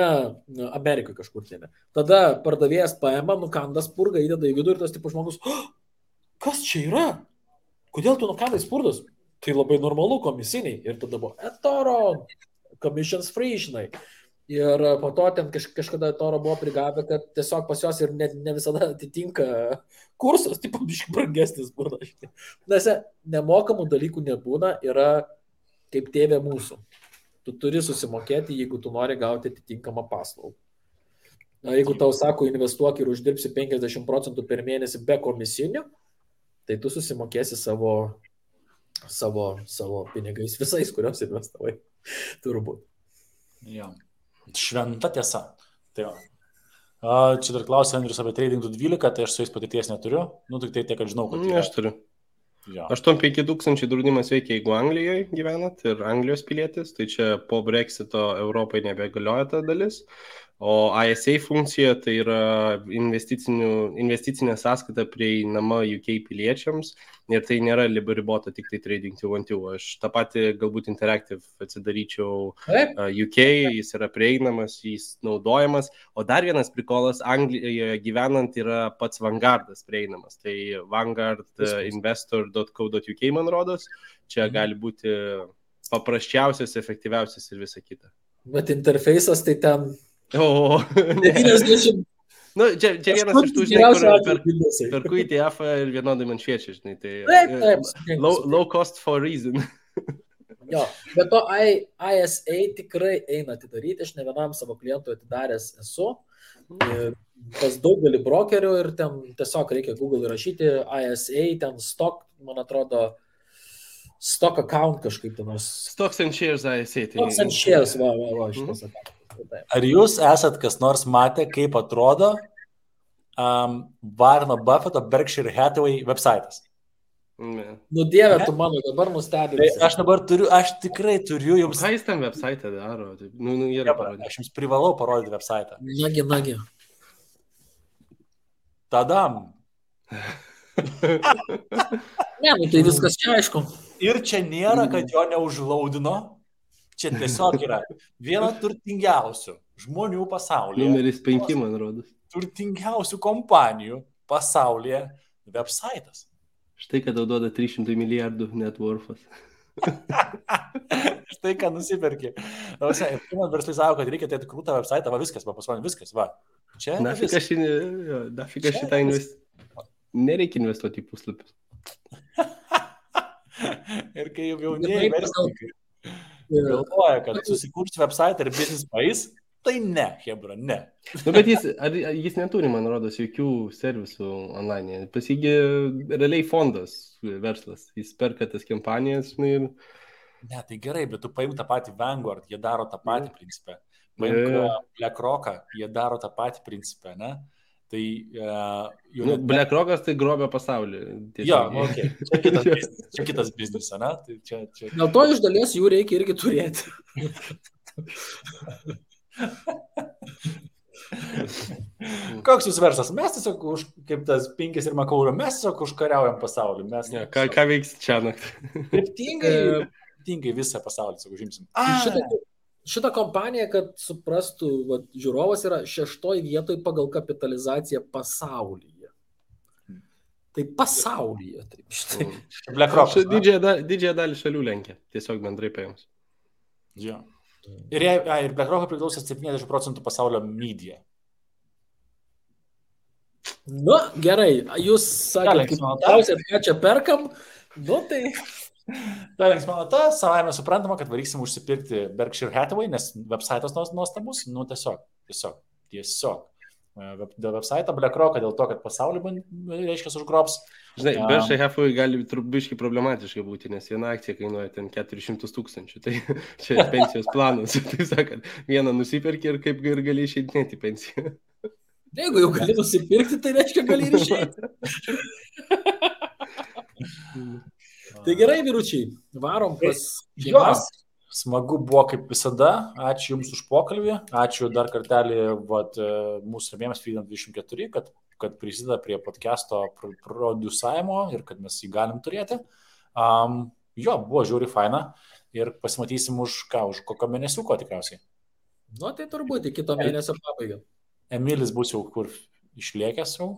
Amerikoje kažkur tėme, tada pardavėjas paima, nukanda spurgą, įdeda į vidų ir tas tipo žmogus, kas čia yra? Kodėl tu nukandai spurgus? tai labai normalu komisiniai. Ir tada buvo eToro, commissions free, žinai. Ir po to ten kažkada eToro buvo prigavę, kad tiesiog pas jos ir ne visada atitinka kursas, tipo biškai brangesnis būna. Nes nemokamų dalykų nebūna, yra kaip tėvė mūsų. Tu turi susimokėti, jeigu tu nori gauti atitinkamą paslaugą. Na, jeigu tau sako, investuok ir uždirbsi 50% per mėnesį be komisinių, tai tu susimokėsi savo pinigais visais, kuriuos investavai. Turbūt. Ja. Šventa tiesa. Tai va. Čia dar klausė Andrius apie Trading 12, tai aš su jais patirties neturiu. Nu, tik tai tiek, kad žinau, kad... Aš turiu. Ja. 8-5 tūkstančiai draudimas veikia, jeigu Anglijoje gyvenat ir Anglijos pilietis, tai čia po Brexito Europai nebegalioja ta dalis. O ISA funkcija tai yra investicinė sąskaita prieinama UK piliečiams ir tai nėra ribota tik tai Trading 212. Aš tą patį galbūt Interactive atsidaryčiau UK, jis yra prieinamas, jis naudojamas. O dar vienas prikolas, Anglijoje gyvenant yra pats Vanguardas prieinamas. Tai vanguardinvestor.co.uk man rodos. Čia gali būti paprasčiausias, efektyviausias ir visa kita. Bet interfejsas tai ten... O, 90. Nu, čia vienas iš tų, žinai, per kurį ETF ir vienodai man šviečia, žinai, tai low cost for reason. Jo, bet to ISA tikrai eina atidaryti, aš ne vienam savo klientui atidaręs esu, pas daugelį brokerių ir ten tiesiog reikia Google įrašyti ISA, ten stock, man atrodo, stock account kažkaip ten. Stocks and shares ISA. Stocks and shares, va, šitas account. Ar jūs esat kas nors matę, kaip atrodo Warreno Buffetto Berkshire Hathaway websaitas? Nu dieve, tu mano dabar nustebinai. Aš tikrai turiu jums... Ką jis tam websaitą daro? Aš jums privalau parodyti websaitą. Nagi. Tadam. Ne, nu tai viskas čia aišku. Ir čia nėra, kad jo neužlaudino. Čia tiesiog yra viena turtingiausių žmonių pasaulyje. Numeris 5, man rodos. Turtingiausių kompanijų pasaulyje websaitas. Štai, kad tau duoda 300 milijardų net worthas. Štai, ką nusipirki. Man verslai savo, kad reikia tai krūtą websaitą, va viskas, va pasaulyje viskas, va. Čia Nafika šitą nereikia investuoti į puslapius. Ir kai jaunieji verslininkai galvoja, kad susikurti website ir business país, tai ne, hebra, ne. Nu, bet jis neturi, man rodos, jokių servisų online. Pas jį realiai fondas verslas. Jis perka tas kampanijas ir... Ne, tai gerai, bet tu paimk tą patį Vanguard, jie daro tą patį principą. Paimk BlackRock'ą, jie daro tą patį principą, ne? Tai... BlackRock'as tai grobia pasaulį. Jo, okay. Čia kitas biznis, ne? Tai čia... Dėl to iš dalies jų reikia irgi turėti. Koks jūs verslas? Mes tiesiog, kaip tas Pinkis ir Makaulio, mes tiesiog užkariaujam pasaulį. Ką veiks čia naktį? Kryptingai visą pasaulį, tiesiog užimsim. Šitą kompaniją, kad suprastų, žiūrovas yra 6 vietoje pagal kapitalizaciją pasaulyje. Tai pasaulyje. Taip, štai. BlackRock. Didžiąją dalį šalių lenkia, tiesiog bendrai paėmus. Jo. Ir BlackRock priklauso 70% pasaulio media. Nu, gerai, jūs sakėte, ką čia perkam, nu tai... Ta linksmana, savaime suprantama, kad varyksim užsipirkti Berkshire Hathaway, nes websaitas nuostabus, nu tiesiog. Dėl websaito BlackRock, dėl to, kad pasaulį, reiškia, užgrobs. Žinai, Berkshire Hathaway gali trubiškai problematiškai būti, nes viena akcija kainuoja ten 400 000. Tai čia pensijos planas. Tai sakant, vieną nusipirki ir kaip ir gali išeidinėti pensiją. Jeigu jau gali nusipirkti, tai reiškia gali ir išeiti. Tai gerai, vyručiai, varom pas šeimas. Smagu buvo kaip visada, ačiū Jums už pokalbį, ačiū dar kartelį mūsų rėmėjams Freedom 24, kad prisideda prie podcast'o produsavimo ir kad mes jį galim turėti. Buvo žiūri faina ir pasimatysim už kokio mėnesiuko tikriausiai. Nu, tai turbūt į kito mėnesio pabaigą. Emilis bus jau kur išlėkęs jau.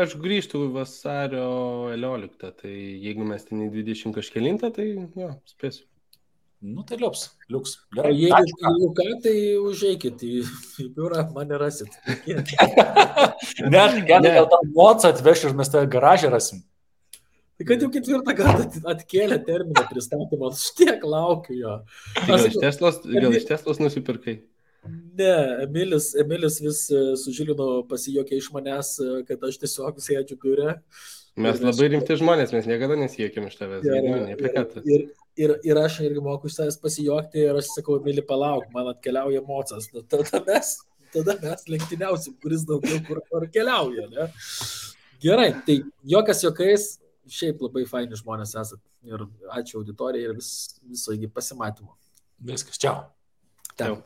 Aš grįžtu vasario 11, tai jeigu mes ten į 20 kažkelintą, tai jo, spėsiu. Nu, tai liuks. O Gerai. jeigu ką, tai užeikit į biurą, mane rasit. Ne, gal tą mocą atveš ir mes tą garažą rasim. Tai kad jau 4 kartą atkėlė terminą pristatymą, aš tiek laukiu jo. Gal iš Teslos nusipirkai? Ne, Emilis vis su Žilinu pasijokė iš manęs, kad aš tiesiog sėdžiu biure. Mes labai rimti žmonės, mes niekada nesijokėm iš tavęs. Ir aš irgi moku iš savęs pasijokti ir aš sakau, Emili, palauk, man atkeliauja mocas. Tada mes lenktyniausim, kuris daugiau kur keliauja. Ne? Gerai, tai jokas jokais, šiaip labai faini žmonės esat. Ir ačiū auditorijai ir viso iki pasimatymo. Viskas, čiau. Ciao.